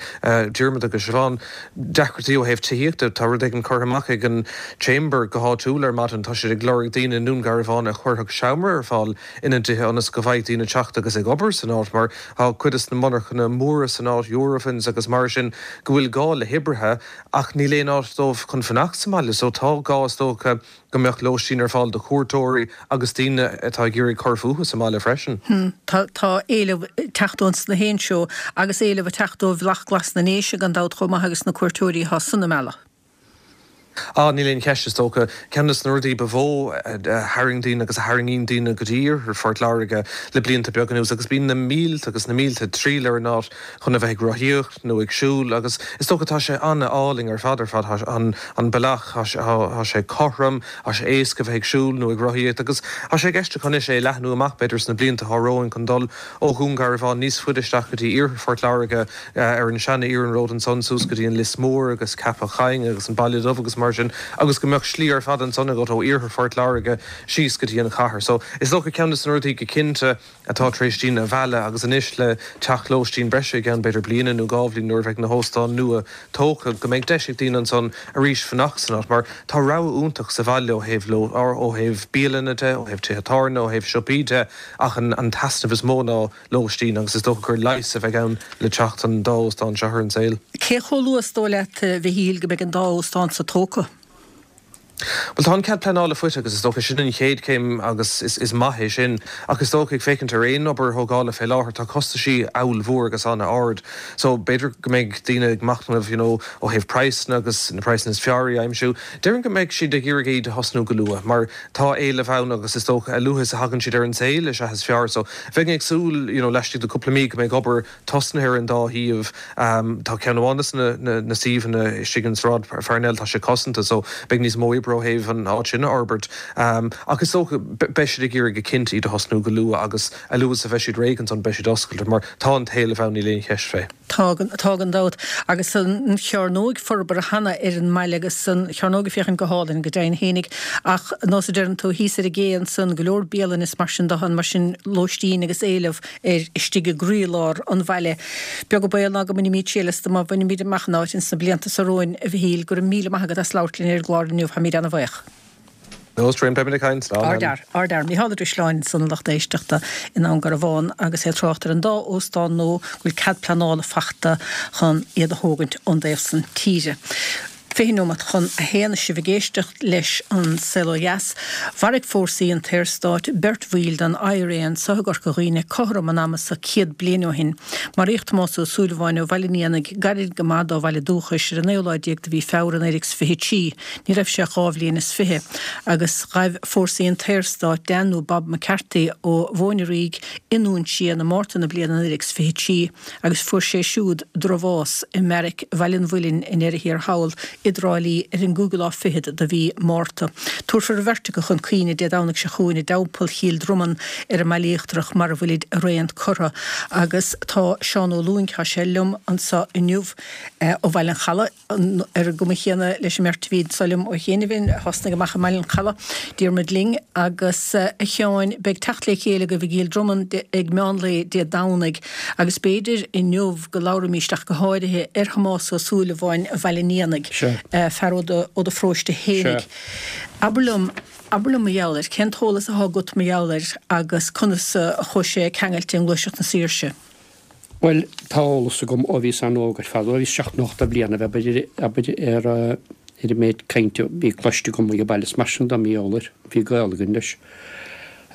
Diarmuid agus Siobhán, deacrachtaí ó thaobh tithíochta, tá rud éigin curtha amach ag an Chamber go háitiúil ar maidin, tá siad ag lorg daoine i nDún Garbhán a chuirfeadh seomra ar fáil ina dtithe ionas go bhfaigheadh daoine teacht agus ag obair san áit mar tá cuid de na monarchana móra san áit, Eurofins agus mar sin, go bhfuil gá le hoibrithe ach níl aon áit dóibh chun fanacht sa mbaile so tá gá is dócha go mbeadh lóistín ar fáil do chuairteoirí agus daoine atá ag iarraidh cur fúthu sa mbaile freisin. Tá tá éileamh ag teacht ón sna haon seó agus éileamh ag teacht ó Bhealach Glas na nDéise gan dabht chomh maith agus na cuairteoirí atá san a mhealladh. Á, níl aon cheist, is dócha. Ceann de na rudaí ba mhó a tharraing daoine agus a tharraingíonn daoine go dtí iarthar Phort Láirge le blianta beaga anuas agus bíonn na mílte agus na mílte ag triall ar an áit chun a bheith ag rothaíocht nó ag siúl agus is dócha tá sé an-álainn ar fad ar fad, tá an an bealach, tá tá sé cothrom, tá sé éasca a bheith ag siúl nó ag rothaíocht agus tá sé i gceist acu anois é a leathnú amach b'fhéidir sna blianta atá romhainn chun dul ó Dhún Garbhán níos faide isteach go dtí iarthar Phort Láirge ar an seana-iarnród ansan suas go dtí an Lios Mór agus Ceapach Choinn agus an Baile Dubh agus mar sin agus go mbeadh slí ar fad ansan agat ó iarthar Phort Láirge síos go dtí an chathair. So is dócha ceann de na rudaí go cinnte atá tar éis daoine a mhealladh agus anois le teacht lóistín breise i gceann b'fhéidir bliana nó dhá bhliain nuair a bheidh na hóstáin nua tógtha go mbeidh deis ag daoine ansan arís fanacht san áit mar tá rogha iontach sa bhaile ó thaobh ó thaobh bialanna de, ó thaobh tithe tábhairne, ó thaobh siopaí de ach an an t-easnamh is mó ná lóistín agus is dócha gur leigheas a bheidh ann le teacht an dá óstán seo ar an saol. Cé chomh luath is dóigh leat, a Mhichíl, go mbeidh an dá óstán so tógtha? Bhuel, tá an cead pleanála faighte agus is dócha sin an chéad chéim agus is maith é sin. Ach is dócha, ag féachaint ar aon obair thógála fé láthair, tá costaisí ollmhór agus an-ard. So, b'fhéidir go mbeidh daoine ag machnamh, you know, ó thaobh praghsanna agus na praghsanna is fearr a aimsiú. Déarfainn go mbeidh siad ag iarraidh iad a thosnú go luath mar tá éileamh ann agus is dócha a luaithe is a thagann siad ar an saol is ea is fearr. So, bheinn ag súil, you know, laistigh de cúpla mí go mbeidh obair tosnaithe ar an dá shuíomh. Tá ceann amháin de na suíomhanna istigh in Sráid Pharnell, tá sé cosanta so beidh níos mó oibre ó thaobh an áit sin a fhorbairt. Ach is dócha, beidh siad ag iarraidh go cinnte iad a thosnú go luath agus a luaithe is a bheidh siad réidh ansan beidh siad oscailte mar tá an t-éileamh ann, níl aon cheist fé. Tá, tá gan dabht. Agus an Chearnóig forbartha cheana ar an mbaile agus an Chearnóg ag féachaint go hálainn, go deimhin fhéinig. Ach nós a deireann tú, thíos ar an gcé ansan, go leor bialann is mar sin de, mar sin lóistín agus éileamh air istigh i gcroílár an bhaile. Beag an baol ná go mbainfimid triail astu má bhainimid amach an áit ins na blianta so romhainn, a Mhichíl. Go raibh míle maith agat as labhairt linn ar an gclár inniu. Táimid ana-bhaoch. No strain, beimid ag caint. Slán. Ardfhear, ardfhear. Mícheál Ó Drisleáin ansan a lucht éisteachta i nDún Garbhán agus é ag trácht ar an dá óstán nua go bhfuil cead pleanála fachta chun iad a thógaint ón dtaobh san tíre. 20 nóiméad chun a haon is sibh ag éisteacht leis An Saol Ó Dheas. Mharaigh fórsaí an tSaorstáit beirt bhaill den IRA anso i gCorca Dhuibhne cothrom an ama so 100 bliain ó shin. Maraíodh Tomás Ó Súilleabháin ó Bhaile an Éanaigh, gairid go maith dá bhaile dúchais, ar an naoú lá déag de mhí Feabhra 1923. Ní raibh sé ach dhá bhliain is fiche. Agus ghaibh fórsaí an tSaorstáit Dan nó Bob McCarthy ó Mhóin an Fhraoigh i nDún Síon i Márta na bliana 1923 agus fuair sé siúd drochbhás i mbeairic Bhaile an Mhuilinn i ndeireadh thiar thall i dTrá Lí ar an gcúigiú lá fichead de mhí Márta. Tabharfar an bheirt acu chun cuimhne Dé Domhnaigh seo chugainn i dTeampall Chill Dromann ar an mBaile Íochtarach mar a bhfuilid araon curtha. Agus tá Seán Ó Lúing, tá sé liom anso inniu ó Bhaile an Chalaidh, ar an gcuma chéanna leis an mbeirt a bhí anso liom ó chianaibh, a thosnaigh amach i mBaile an Chalaidh, Diarmuid Ling agus a Sheáin. Beidh teacht le chéile agaibh i gCill Dromann ag meán lae Dé Domhnaigh agus b'fhéidir inniu go labhraímíst ach go háirithe ar Thomás Ó Súilleabháin Bhaile an Éanaigh, fear ó do pharóiste fhéinig. Abair liom, abair liom mar gheall air, cén t-eolas athá agat mar gheall air agus conas a chuaigh sé ceangailte i nGluaiseacht na Saoirse? Bhuel, tá eolas agam ó bhíos an-óg ar fad, ó bhíos seacht nó ocht de bhliana, abair, abair, ar, ar an méid cainte a bhí cloiste agam ag an baile is mar sin de mar gheall air. Bhí gaol againn leis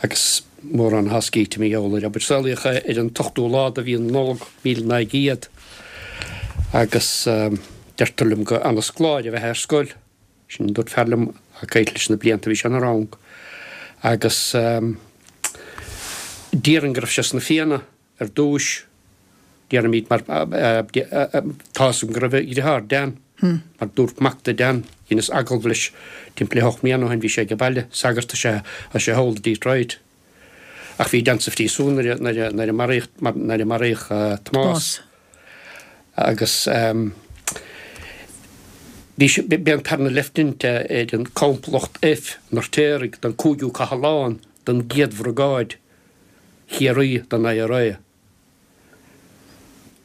agus mórán atá scríte mar gheall air, abair. Saolaíodh é ar an t-ochtú lá de mhí na Nollag, 1900 agus deirtear liom gur ana-scoláire ab ea é ar scoil. Sin a dúirt fear liom ag caint leis na blianta a bhí sé ina rang agus déarfainn go raibh sé sna Fianna ar dtúis, déarfaimid, mar tá 'fhios agam go raibh a dhriotháir Dan, mar dúirt mac de Dan, dheineas agallamh leis timpeall le hocht mbliana ó shin, bhí sé ag an baile, sagart is ea, tá sé thall i Detroit. Ach bhí Dan sa phríosún nuair a nuair a maraíodh nuair a maraíodh Tomás. Agus bhí sé b'é an tarna leifteanant ar an Complacht F an Fheirtéaraigh den 5ú Cathlán den gCéad Bhriogáid Chiarraí den IRA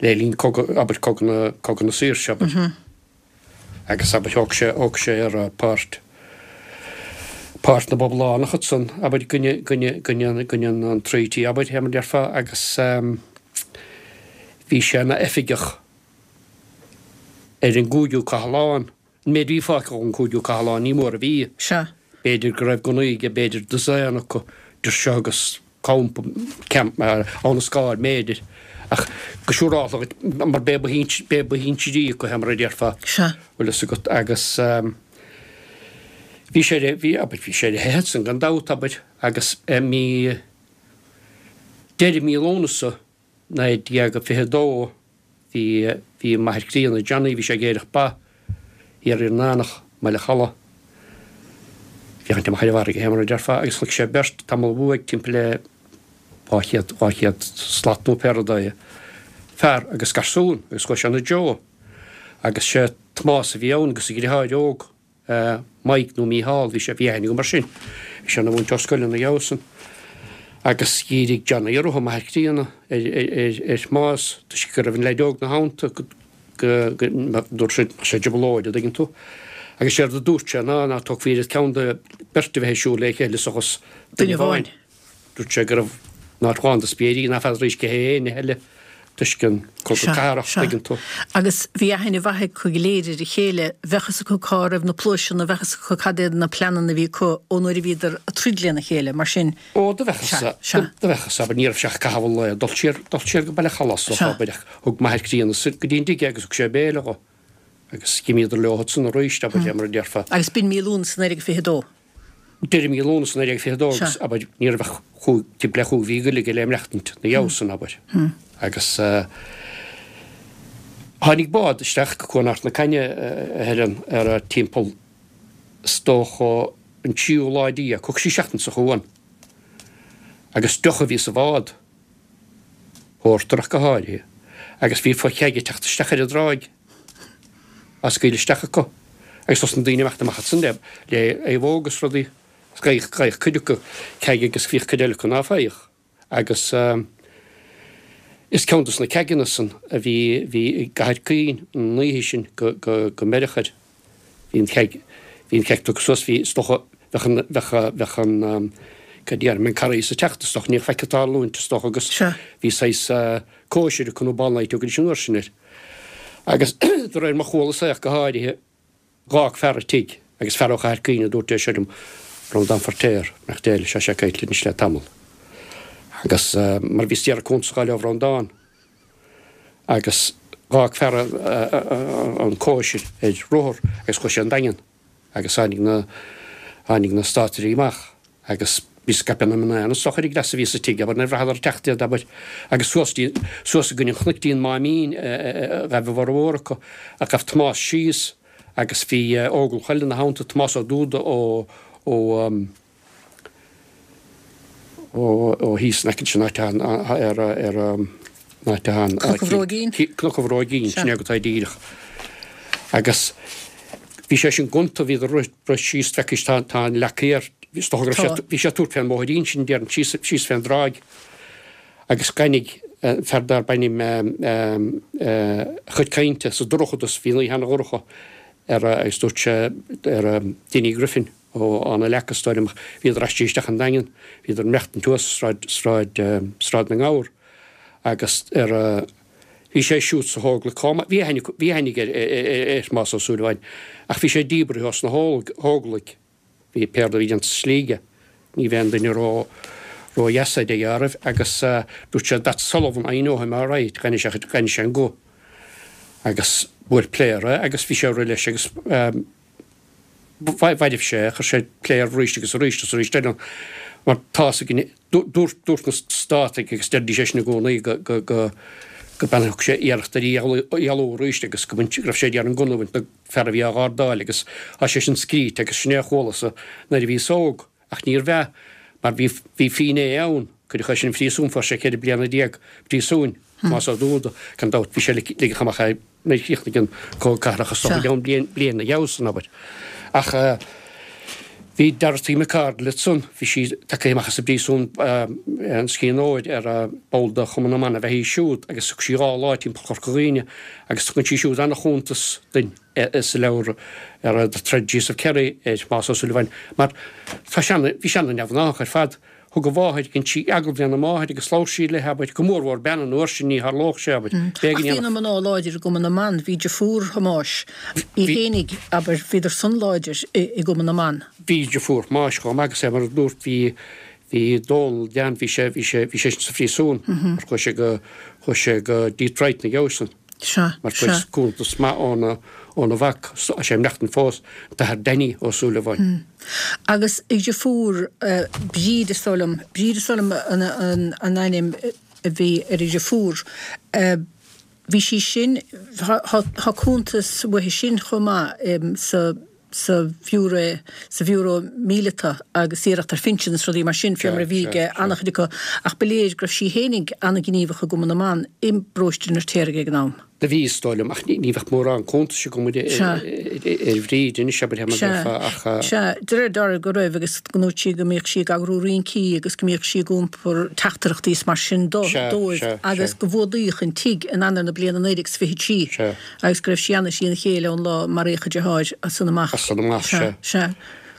le linn cogadh abair cogadh na cogadh na saoirse abair. Agus abair thóg sé thóg sé ar páirt páirt na bPoblachtánach ansan abair i gcoinne gcoinne gcoinne gcoinne an Treaty abair fé mar a déarfá agus bhí sé ina oifigeach ar an gcúigiú cathlán. An méid a bhí fágtha ón gcúigiú cathlán, ní mór a bhí. Sea. B'fhéidir go raibh gunnaí aige, b'fhéidir dosaen acu, idir seo agus campa, camp, Abha na Scáil, b'fhéidir. Ach go siúrálta dhuit, mar b'é ba b'é ba shinsirí acu é, mar a déarfá. Sea. Bhfuil fhios agat, agus bhí sé ar, bhí, abair, bhí sé ar a theitheadh ansan gan dabht, abair, agus mí, deireadh mí Lúnasa, 1922, bhí, bhí m'athair críonna, Johnny, bhí sé ag aerach ba thiar ar an Eanach, mBaile Chalaidh, féachaint amach ar an bhfarraige, fé mar a déarfá, agus chonaic sé beirt tamall uaidh, timpeall le 200, 200 slat nó pé rud é, fear agus garsún, agus chuaigh sé ina dtreo. Agus sé Tomás a bhí ann agus a dhriotháir óg. Mike nó Mícheál, bhí sé, bhí aithne agam air sin, bhí sé ina mhúinteoir scoile ina dhiaidh san. Agus dhírigh Johnny orthu, m'athair críonna, ar, ar, ar Thomás, toisc go raibh an leaid óg 'na theannta, go, go, go, dúirt sé, mbeadh sé i dtrioblóid, a' dtuigeann tú. Agus séard a dúirt sé ná, ná tógfaí oiread ceann de beirt a bheith ag siúl le chéile seachas duine amháin. Dúirt sé go raibh in áit lán de spiairí ná feadaraís cé hé éinne eile toisc an cogadh cathartha, tuigeann tú. Agus bhí aithne mhaith acu go léir ar a chéile, bheadh fhios acu cá raibh na pluaiseanna, bheadh fhios acu cad iad na pleananna a bhí acu ón uair a bhíodar ag troid lena chéile, mar sin. Ó, do bheadh fhios, do bheadh fhios, abair, ní raibh sé ach caitheamh an lae, dul siar, dul siar go Baile Chalaidh, is dócha, abair, ach thug m'athair críonna go dtí an dtigh é agus thug sé béile dho agus dh'imíodar leo ansan arís, abair, mar a déarfá. Agus b'in mí Lúnasa 1922. Deireadh mí Lúnasa 1922 agus, abair, ní raibh ach chúig, timpeall le chúig mhí go leith aige le maireachtaint ina dhiaidh san, abair. Agus tháinig bád isteach go Cuan Ard na Cainne, a Helen, ar timpeall, is dócha, an tríú lá déag, thug sí seachtain sa chuan. Agus deoch a bhí sa bhád, pórtar ach go háirithe, agus bhí fo-cheaig ag teacht isteach ar an dtráigh. á scaoileadh isteach acu agus thosnaigh daoine imeacht amach ansan le le naomhóg agus rudaí. Gheibheadh gheibheadh cuid acu ceaig agus bhíodh cuid eile acu ná faigheadh. Agus is ceann dos na ceaigeanna san a bhí bhí i gCathair Caoin an oíche sin go go go mbeireadh air. Bhí an cheaig bhí an cheaig tugtha suas bhí is dócha. Bheadh an, bheadh, bheadh an, cad déarfainn, an Carghas ag teacht is dócha, ní faic ag tarlúint is dócha agus bhí saghas cóisir acu nó ball night a thugaidís an uair sin air. Agus de réir mar chualas é ach go háirithe, Dh'fhág fear an tigh, agus fear ó Chathair Cuimhne a dúirt é seo liom, Breandán Feirtéar, nach Dé leis, tá sé caillte anois le tamall. Agus mar bhíos d'iarraidh cuntas a dh'fháil ó Bhreandán, agus dh'fhág fear an cóisir ar rothar agus chuaigh sé 'on Daingean agus tháinig na, tháinig na státairí amach agus bhí scaipeadh na mná ann is dócha ar an gcleas a bhí sa tigh, abair, nuair a bhraitheadar ag teacht iad, abair, agus suas dtí, suas i gcoinne an chnoic dtí an Máimín a ghaibh a bhformhór acu, ach ghabh Tomás síos agus bhí Óglach eile ina theannta, Tomás Ó Dúda ó, ó, ó, ó thíos in aice leis an áit atá ar, ar, an áit atá an. Cnoc an Bhróigín? Cnoc an Bhróigín, sin é go tá díreach. Agus. Bhí sé sin gonta, bhíodar rith síos, feicfidh tá tá an leac thiar, is dócha go raibh sé, bhí sé ag tabhairt fén mbóithrín sin, déarfainn, síos, síos fén dtráigh agus dh'aithnigh fear darb ainm a chuid cainte sa dorchadas, bhí an oíche ana-dhorcha ar agus dúirt sé ar Dinny Griffin ó Fhána Leaca is dóigh liom ach bhíodar aistrithe isteach an Daingean, bhíodar ag maireachtaint thuas sráid, sráid, Sráid na nGabhar agus ar Bhí sé siúd sa hÓglaigh chomh maith. Bhí aithne, bhí aithne aige ar Thomás Ó Súilleabháin ach bhí sé díbrithe os na hÓglaigh. Bhí pé rud a bhí déanta sa slí aige. Ní bheinn duine ró, ró-dheas é de dheáraimh agus dúirt sé That's Sullivan, I know him all right. Dh'aithnigh sé, dh'aithnigh sé an guth. Agus bhuail pléar é agus bhí sé ag rith leis agus mhairbh sé é, chuir sé pléar arís agus arís agus arís eile mar tá's againn, dúirt, dúirt na Státaigh agus deiridís é sin i gcónaí go, go, go, go bean thug sé iarracht ar í a dhealú arís agus go mbaint, go raibh sé ag iarraidh an gunna a bhaint den fear a bhí á ghardáil agus tá sé sin scríte agus sin é a chualas-sa nuair a bhíos óg. Ach níorbh ea, mar bhí, bhí finné ann, cuireadh é sin 'on phríosún, fuair sé 14 bliana príosúin, Tomás Ó Dúda, gan dabht, bhí sé ligeadh amach é nuair a chríochnaigh an Cogadh Cathartha, is dócha, i gceann bliain, bliain ina dhiaidh san, abair. Ach bhí Dorothy McCardle ansan, bhí sí tagtha amach as an bpríosún, an Sciath Óir, ar ball de Chumann na mBan ab ea í siúd, agus thug sí 2 lá timpeall Chorca Dhuibhne, agus tugann sí siúd ana-chuntas duinn. sa leabhar ar The Tragedies of Kerry ar Thomás Ó Súilleabháin mar tá sé ana, bhí sé ana-neamhghnách ar fad. Thug a mháthair, dhein sí agallamh lena máthair agus labhair sí léi, abair, go mór mhór bean an uair sin, ní tharlódh sé, abair. Ach bhí na mná láidir i gCumann na mBan, bhí deirfiúr Thomáis í fhéinig, abair, bhíodar san láidir i gCumann na mBan. Bhí deirfiúr Thomáis chomh maith agus é mar a dúrt, bhí, bhí Dónal, Dan, bhí sé, bhí sé, bhí sé sa phríosún mar chuaigh sé go, chuaigh sé go Detroit ina dhiaidh san. Sea, Mar fuair sea. cuntas maith óna, óna mhac, tá sé ag maireachtaint fós, an tAthair Danny Ó Súilleabháin. Agus a dheirfiúr, Bríd is dóigh liom, Bríd is dóigh liom an, an, an ainm a bhí ar a dheirfiúr. Bhí sí sin, tá, tá cuntas uaithi sin chomh maith sa, sa Bhiúró, sa Bhiúró Míleata agus iarracht ar phinsean is rudaí mar sin, fé mar a bhí ag an-chuid acu, ach ba léir go raibh sí fhéinig an-ghníomhach i gCumann na mBan i bparóiste an Fheirtéaraigh ag an am. Do bhí, is dóigh liom, ach ní bheadh mórán cuntais agam ar Bhríd anois, abair, mar déarfá, ach. Sea, de réir dealraimh go raibh agus go ndúirt sí go mbíodh sí ag eagrú rincí agus go mbíodh sí ag iompar teachtaireachtaí is mar sin dóibh agus go bhfuadaíodh an tigh in Eanáir na bliana 1923. Agus go raibh sí ana thrína chéile ón lá a maraíodh a deartháir as san amach. As san amach, sea. Sea.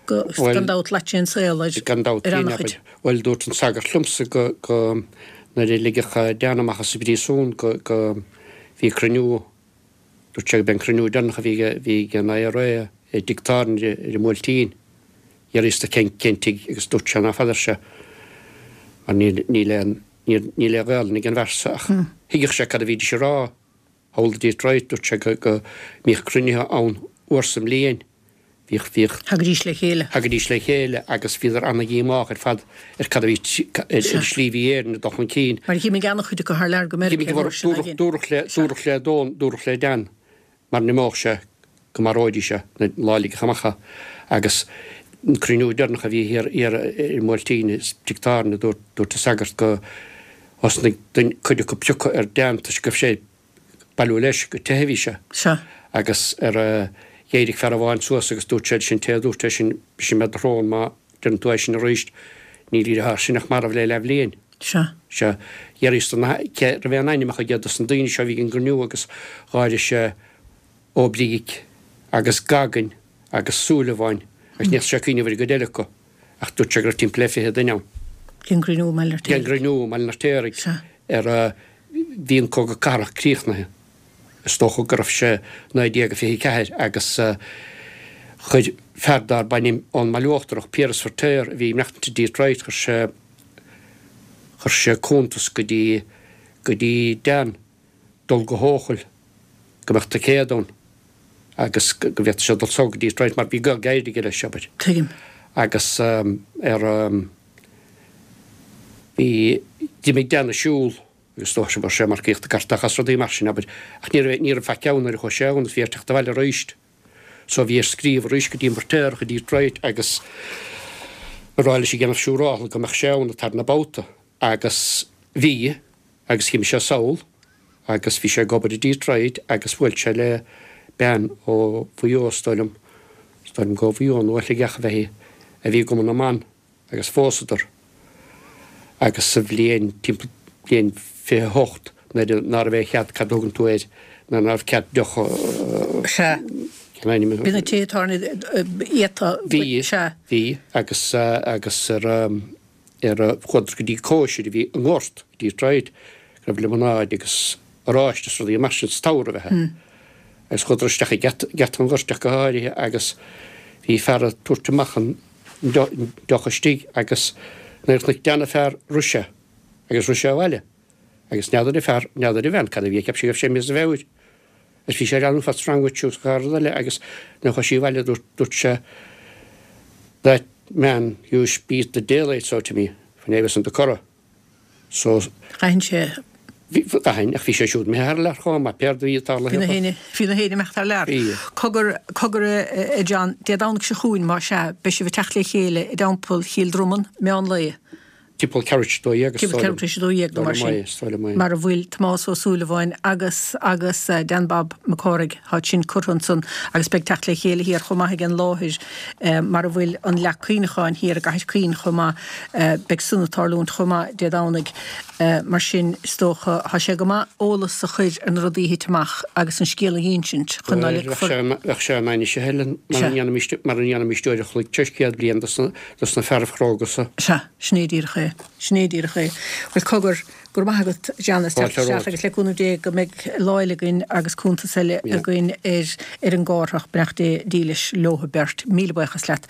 Go, gan dabht, shlait sé an saol ar, Gan dabht, ar ana-chuid. Bhuel, dúirt an sagart liomsa go, go, nuair a ligeadh Dan amach as an bpríosún go, go, bhí cruinniú, dúirt sé go b'é an cruinniú deireanach a bhí ag, bhí ag an IRA i dtigh tábhairne ar an mBuailtín. D'fhiafraíos de cén, cén tigh agus dúirt sé ná feadar sé mar níl, níl aon, níl, níl aon Ghaelainn ag an bhfear so ach thuigfeadh sé cad a bhídís a rá. Thall i Detroit, dúirt sé go, go mbíodh cruinnithe ann uair sa mbliain. Bhíodh, bhíodh. Thagaidís le chéile. Thagaidís le chéile agus bhíodar ana-dhíomách ar fad ar cad a bhí, ar an slí a bhí Éirinn ag dul chun cinn. Mar dh'imigh ana-chuid acu thar lear go Meiriceá an uair sin again. Dúradh le, dúradh le Don, dúradh le Dan mara n-imeodh sé go maróidís é an lá a ligeadh amach é agus an cruinniú deireanach a bhí thiar, thiar ar an mBuailtín i dtigh tábhairne, dúirt, dúirt an sagart go thosnaigh duine, cuid acu piocadh ar Dan toisc go raibh sé ag bailiú leis, go teitheadh a bhí sé. Sea. Agus ar a, d'éirigh fear amháin suas agus dúirt sé leis an té a dúirt é sin, brisfidh mé do shrón má deireann tú é sin arís, níl a dheartháir sin ach marbh le leathbhliain. Sea. Sea. D'fhiafraíos de na, cé raibh aon ainmneacha aige dos na daoine seo a bhí ag an gcruinniú agus dh'áirigh sé Ó Bric agus Goggin agus Súilleabháin. Agus ní fhéadfadh sé cuimhneamh ar an gcuid eile acu, ach dúirt sé go raibh timpeall le 20 duine ann. Ag an gcruinniú i mBaile an Fheirtéaraigh. Ag an gcruinniú i mBaile an Fheirtéaraigh. Sea. Ar a, bhí an Cogadh Cathartha críochnaithe. Is dócha go raibh sé 1924 agus chuir fear darb ainm ón mBaile Uachtarach, Piaras Feirtéar, a bhí ag maireachtaint i Detroit, chuir sé, chuir sé cuntas go dtí, go dtí Dan dul go hEochaill go mbeadh ticéad ann agus go bhféadfadh sé dul sall go Detroit mar bhí gaol gairid aige leis, abair. Tuigim. Agus ar, bhí, d'imigh Dan ag siúl agus is dócha go raibh sé ag marcaíocht i gcartach is rudaí mar sin, abair, ach ní raibh, ní raibh faic ann nuair a chuaigh sé ann agus bhí air teacht abhaile aríst. So bhí air scríobh arís go dtí an Feirtéarach i Detroit agus a rá leis ag déanamh siúrála go mbeadh sé ann an tarna babhta agus bhí agus d'imigh sé sall agus bhí sé ag obair i Detroit agus bhuail sé le bean ó Mhaigh Eo is dóigh liom, is dóigh liom gur ó Mhaigh Eo nó ó Shligeach ab ea í, a bhí i gCumann na mBan agus phósadar agus sa bhliain, timpeall bliain 28 nuair a, ná raibh aon chead, cad a thugann tú air, nuair ná raibh cead deoch a, Sea. cén ainm a. Bhí na tithe tábhairne iata, Bhí, sea. bhí agus, agus ar, ar, chuadar go dtí cóisir a bhí i ngort i Detroit go raibh liomanáid agus oráiste is rudaí mar sin sa tsamhradh ab ea. Agus chuadar isteach ag geata, geata an ghoirt ach go háirithe agus bhí fear ag tabhairt amach an deoch istigh agus nuair a chonaic Dan an fear rith sé agus rith sé abhaile agus n'fheadar an fear, n'fheadar an bhean cad a bhí, cheap sí go raibh sé imithe as a mheabhair agus bhí sé ag leanúint what's wrong with you is gach rud eile agus nuair a chuaigh sí abhaile dúirt, dúirt sé that man used beat the daylights out of me when I was in the Curragh. So. D'aithin sé. Bhí, d'aithin, ach bhí sé siúd imithe thar lear chomh maith, pé rud a bhí ag tarlú Bhí na héinne, bhí na héinne imeacht thar lear. Bhí. Cogar, cogar a John, Dé Domhnaigh seo chugainn, más ea, beidh sibh ag teacht le chéile i dTeampall Chill Dromann, meán lae. Timpeall ceathrú tar éis a dó dhéag, is dóigh liom. Timpeall ceathrú tar éis a dó dhéag nó mar sin. Mar a bhfuil Tomás Ó Súilleabháin agus agus Dan Bob Mac Cárthaigh, tá sin curtha ansan agus beidh teacht le chéile thiar chomh maith ag an láthair mar a bhfuil an leac cuimhneacháin thiar i gCathair Chaoin chomh maith. Beidh san ag tarlúint chomh maith Dé Domhnaigh. Mar sin, is dócha, tá sé go maith eolas a chur ar na rudaí a thit amach agus an scéal a dh'insint chun ná ligfear. Bheadh sé in ainnise, Helen, mara ndéanfaimis uair a chloig tar éis 100 bliain dos na fearaibh chróga so. Sea, sin é díreach é. Sin é díreach é. Bhuel, cogar, go raibh maith agat, John, as teacht isteach agus le cúnamh Dé go mbeidh lá eile againn agus cuntas eile againn ar ar an gCárthach, beannacht Dé dílis leo beirt. Míle buíochas leat.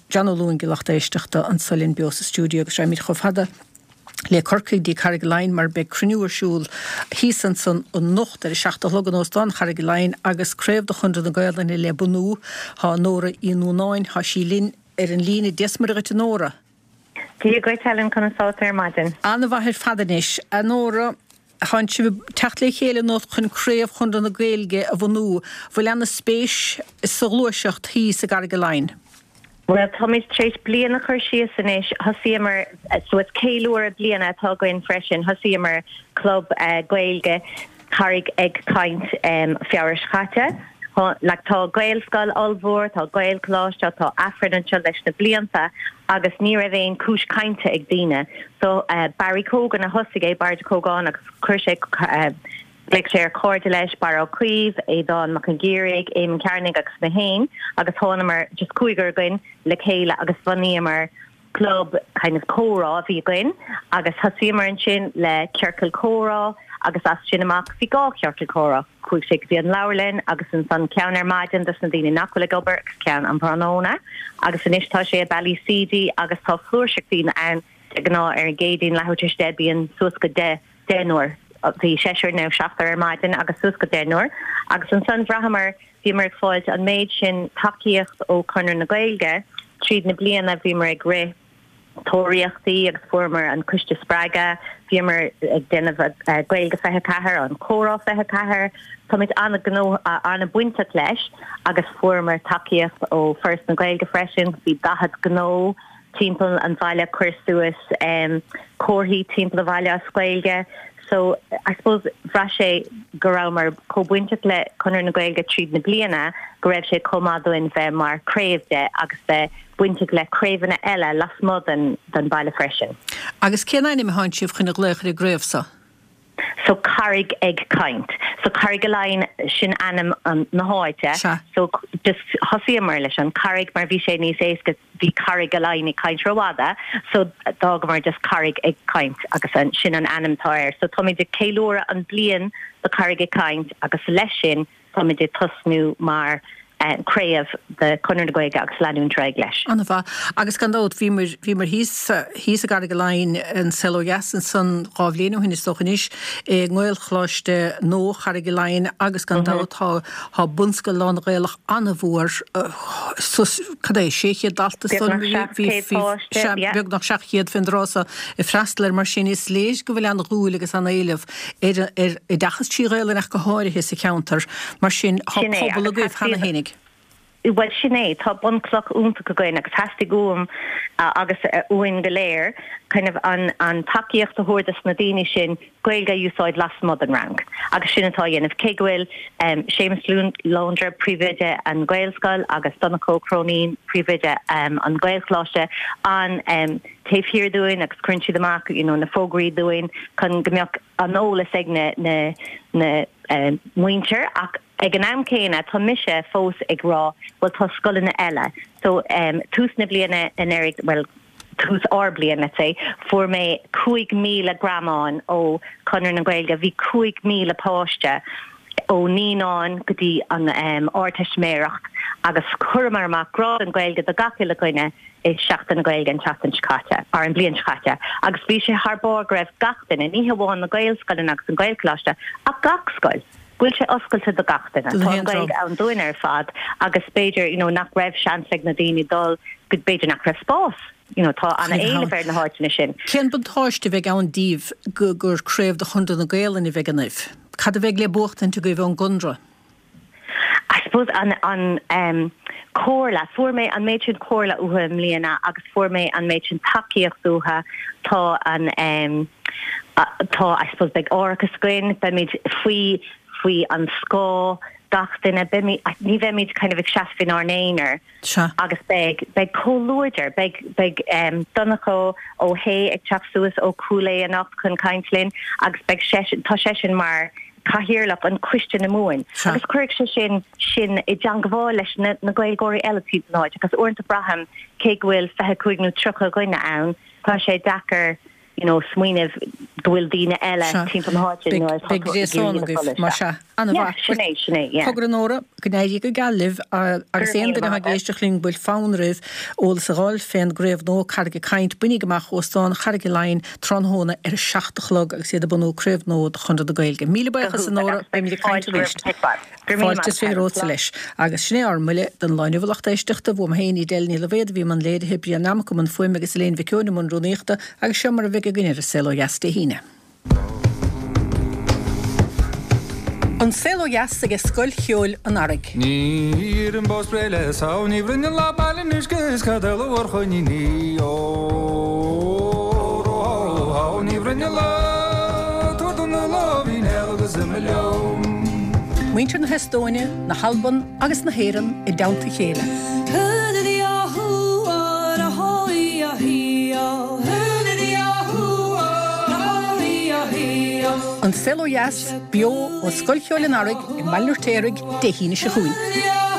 John Ó Luain, do lucht éisteachta, anso linn beo sa stiúideo agus raghaimid chomh fada le Corcaigh dtí Carraig Laighin mar beidh cruinniú ar siúl thíos ansan anocht ar a 7 a chlog in Óstán Charraig Laighin agus craobh de Chonradh na Gaolainne le bunú. Tá Nóra Uí Núnáin, tá sí linn ar an líne. Dia 's Muire dhuit a Nóra. Dia dhuit Helen, conas tá tú ar maidin? An-mhaith ar fad anois. A Nóra, tánn sibh ag teacht le chéile anocht chun Craobh Chonradh na Gaeilge a bhunú. Bhfuil ana spéis sa ghluaiseacht thíos i gCarraig Laighin? Bhuel, táimid tar éis bliain a chur síos anois. Thosaíomar, so is ceiliúradh bliana atá againn freisin, thosaíomar club Gaeilge Carraig ag Caint Feabhra seo caite. Like tá Gaelscoil ollmhór, tá Gaelcholáiste, tá Aifreann anseo leis na blianta agus ní raibh aon cúis cainte ag daoine. So Barry Cogan a thosaigh é, Barry Ó Cógáin agus chuir sé Ghlaoigh sé ar chairde leis, Barra Ó Caoimh, Aodán Mac an Ghiarraigh, Éamonn Cearnaigh agus mé féin agus thánamar, just cúigear againn, le chéile agus bhunaíomar club kind of comhrá a bhí againn agus thosaíomar ansin le ciorcal comhrá agus as sin amach bhí dhá chiorcal comhrá, chuaigh sé go dtí an leabharlann agus ansan ceann ar maidin dos na daoine nach bhfuil ag obair agus ceann um thráthnóna agus anois tá sé i Ballyseedy agus tá flúirseach daoine ann de ghnáth ar an gCéadaoin leathuair tar éis 10 bíonn suas go 10 deichniúr. Bhí seisear nó seachtar ar maidin agus suas go deichniúr agus ansan bhraitheamar, bhíomar ag fáilt an méid sin tacaíocht ó Chonradh na Gaeilge tríd na bliana, bhíomar ag rith tóraíochtaí agus fuaireamar an Coiste Spreagadh, bhíomar ag déanamh Gaeilge 24, an Comhrá 24, táimid an-ghnó, an-bainteach leis agus fuaireamar tacaíocht ó Foras na Gaeilge freisin, bhí 40 gnó timpeall an bhaile, cuir suas comharthaí timpeall an bhaile as Gaeilge. So, I suppose, bhraith sé go rabhamar chomh bainteach le Conradh na Gaeilge tríd na bliana go raibh sé chomh maith dúinn bheith mar craobh de agus bheith bainteach le craobhanna eile lasmuigh den den baile freisin. Agus cén ainm atánn sibh chun a ghlaoch ar an gcraobh so? So Carraig ag Caint. So Carrigaline sin ainm an na háite. Sea. So just thosaíomar leis an Carraig mar bhí sé níos éasca bhí Carrigaline ag caint rófhada so d'fhágamar just Carraig ag Caint agus an sin an ainm atá air. So táimid ag ceiliúradh an bliain do Carraig ag Caint agus leis sin Táimid ag tosnú mar craobh de Chonradh na Gaeilge agus leanúint ar aghaidh leis. An-mhaith. Agus gan dabht, bhíomar, bhíomar thíos, thíos i gCarraig Laighin, an Saol Ó Dheas ansan dhá bhliain ó shin is dócha anois, i nGaelcholáiste nua Charraig Laighin agus gan dabht tá, tá bunscoil lán-Ghaelach an-mhór, suas, cad é, 600 dalta is dóigh liom, Beagnach 700 páiste, sea, beagnach 700 fén dtráth so ag freastal air, mar sin is léir go bhfuil an-dhúil agus an-éileamh ar ar oideachas trí Ghaelainn ach go háirithe sa cheantar. Mar sin, tá Sin é, pobal agus agaibh cheana theastaigh, fhéinig. bhuel sin é, tá bunchloch iontach againn agus theastaigh uaim agus uainn go léir kind of an an tacaíocht a thabhairt dos na daoine sin Gaeilge a úsáid lasmuigh den rang agus sin atá á dhéanamh. Cé go bhfuil Séamus Launder, príomhoide an Ghaelscoil agus Donncha Ó Cróinín, príomhoide an Ghaelcholáiste, an taobh thiar dúinn agus cuireann siad amach you know na fógraí dúinn chun go mbeadh an eolas ag na na na muintir ach ag an am céanna tá mise fós ag rá bhuel tá scoileanna eile so um tús na bliana anuraidh bhuel tús ár bliain let's say fuair mé 5,000 greamán ó Chonradh na Gaeilge bhí 5,000 páiste ó naíonáin go dtí an um Ardteistiméireacht agus chuireamar amach grá don Ghaeilge do gach uile dhuine i Seachtain na Gaeilge an tseachtain seo caite, or an bhliain seo caite, agus bhí sé thar barr go raibh gach duine, ní hamháin na Gaelscoileanna agus an Gaelcholáiste, ach gach scoil, go bhfuil sé oscailte do gach duine. Don Tá an haon Ghaeilge dream. ann dúinn ar fad agus b'fhéidir, you know, nach raibh seans ag na daoine dul, go, b'fhéidir nach raibh spás, you know, tá Chuig an-éileamh ar na háiteanna sin. Cén buntáiste a bheidh ann daoibh go, gur craobh de Chonradh na Gaelainne a bheidh ionaibh? Cad a bheidh le buachtaint agaibh ón gConradh? I suppose an an em comhairle, fuair mé an méid sin comhairle uathu i mbliana agus fuair mé an méid sin tacaíocht uathu, tá an em tá I suppose beidh árachas againn, beimid faoi faoi an scáth gach duine, beimid ní bheimid kind of ag seasamh inár n-aonar. Sea. Agus beidh, beidh comhluadar, beidh, beidh Donncha Ó hAodha ag teacht suas ó Chúil Aodha anocht chun caint linn agus beidh seisean, tá seisean mar Cathaoirleach an Coiste na Mumhan Sea. agus cuirfidh sé sin sinn i dteangmháil leis na, na Gaeilgeoirí eile timpeall na háite agus uaireanta braithim cé go bhfuil 25 nó 30 dhuine ann, tá sé deacair you know, smaoineamh go bhfuil daoine eile Sea. timpeall na háite Beidh, nuair atá beidh tú ag gréasán iarraidh a agaibh, chodladh mar isteach. sea. Yeah, An-mhaith. sin é, sin é, yeah. Cogar a Nóra, go n-éirí go geal libh Go agus raibh aon míle duine atá maith ag agat. éisteacht linn go bhfuil fonn oraibh eolas a dh'fháil fén gcraobh nua Carraig ag Caint, bainigí amach Óstán Charraig Laighin tráthnóna ar a 7 a chlog agus iad ag bunú craobh nua de Chonradh na Gaeilge. Míle Go buíochas a hiontach Nóra, agus beidh beimid ag caint fáilte roimh arís. chomh maith. Go raibh míle Fáilte maith is agat, Helen. romhatsa Slán. leis. Agus sin é ár mbuille don lá inniu a lucht éisteachta. Bhuam féin, Edel Ní Loibhéad a bhí i mbun léirithe, Brian Nammock i mbun fuaime agus Elaine Mhic Eoin i mbun rúnaíochta agus seo mar a bheidh againn ar An Saol Ó Dheas Dé hAoine. An Saol Ó Dheas aige Scoil Cheoil an Earraigh. Ní iarraim bó spré le samh, ní bhruineann lá baile an uisce is cad eile mhór choiníní ó ró ní bhruineann lá tabhair do na lámhainn agus imigh liom. Muintir na hEastóine, na hAlban agus na hÉireann i dteannta a chéile. An Saol Ó Dheas, beo ó Scoil Cheoil an Earraigh i mBaile an Fheirtéaraigh, Dé hAoine seo chugainn.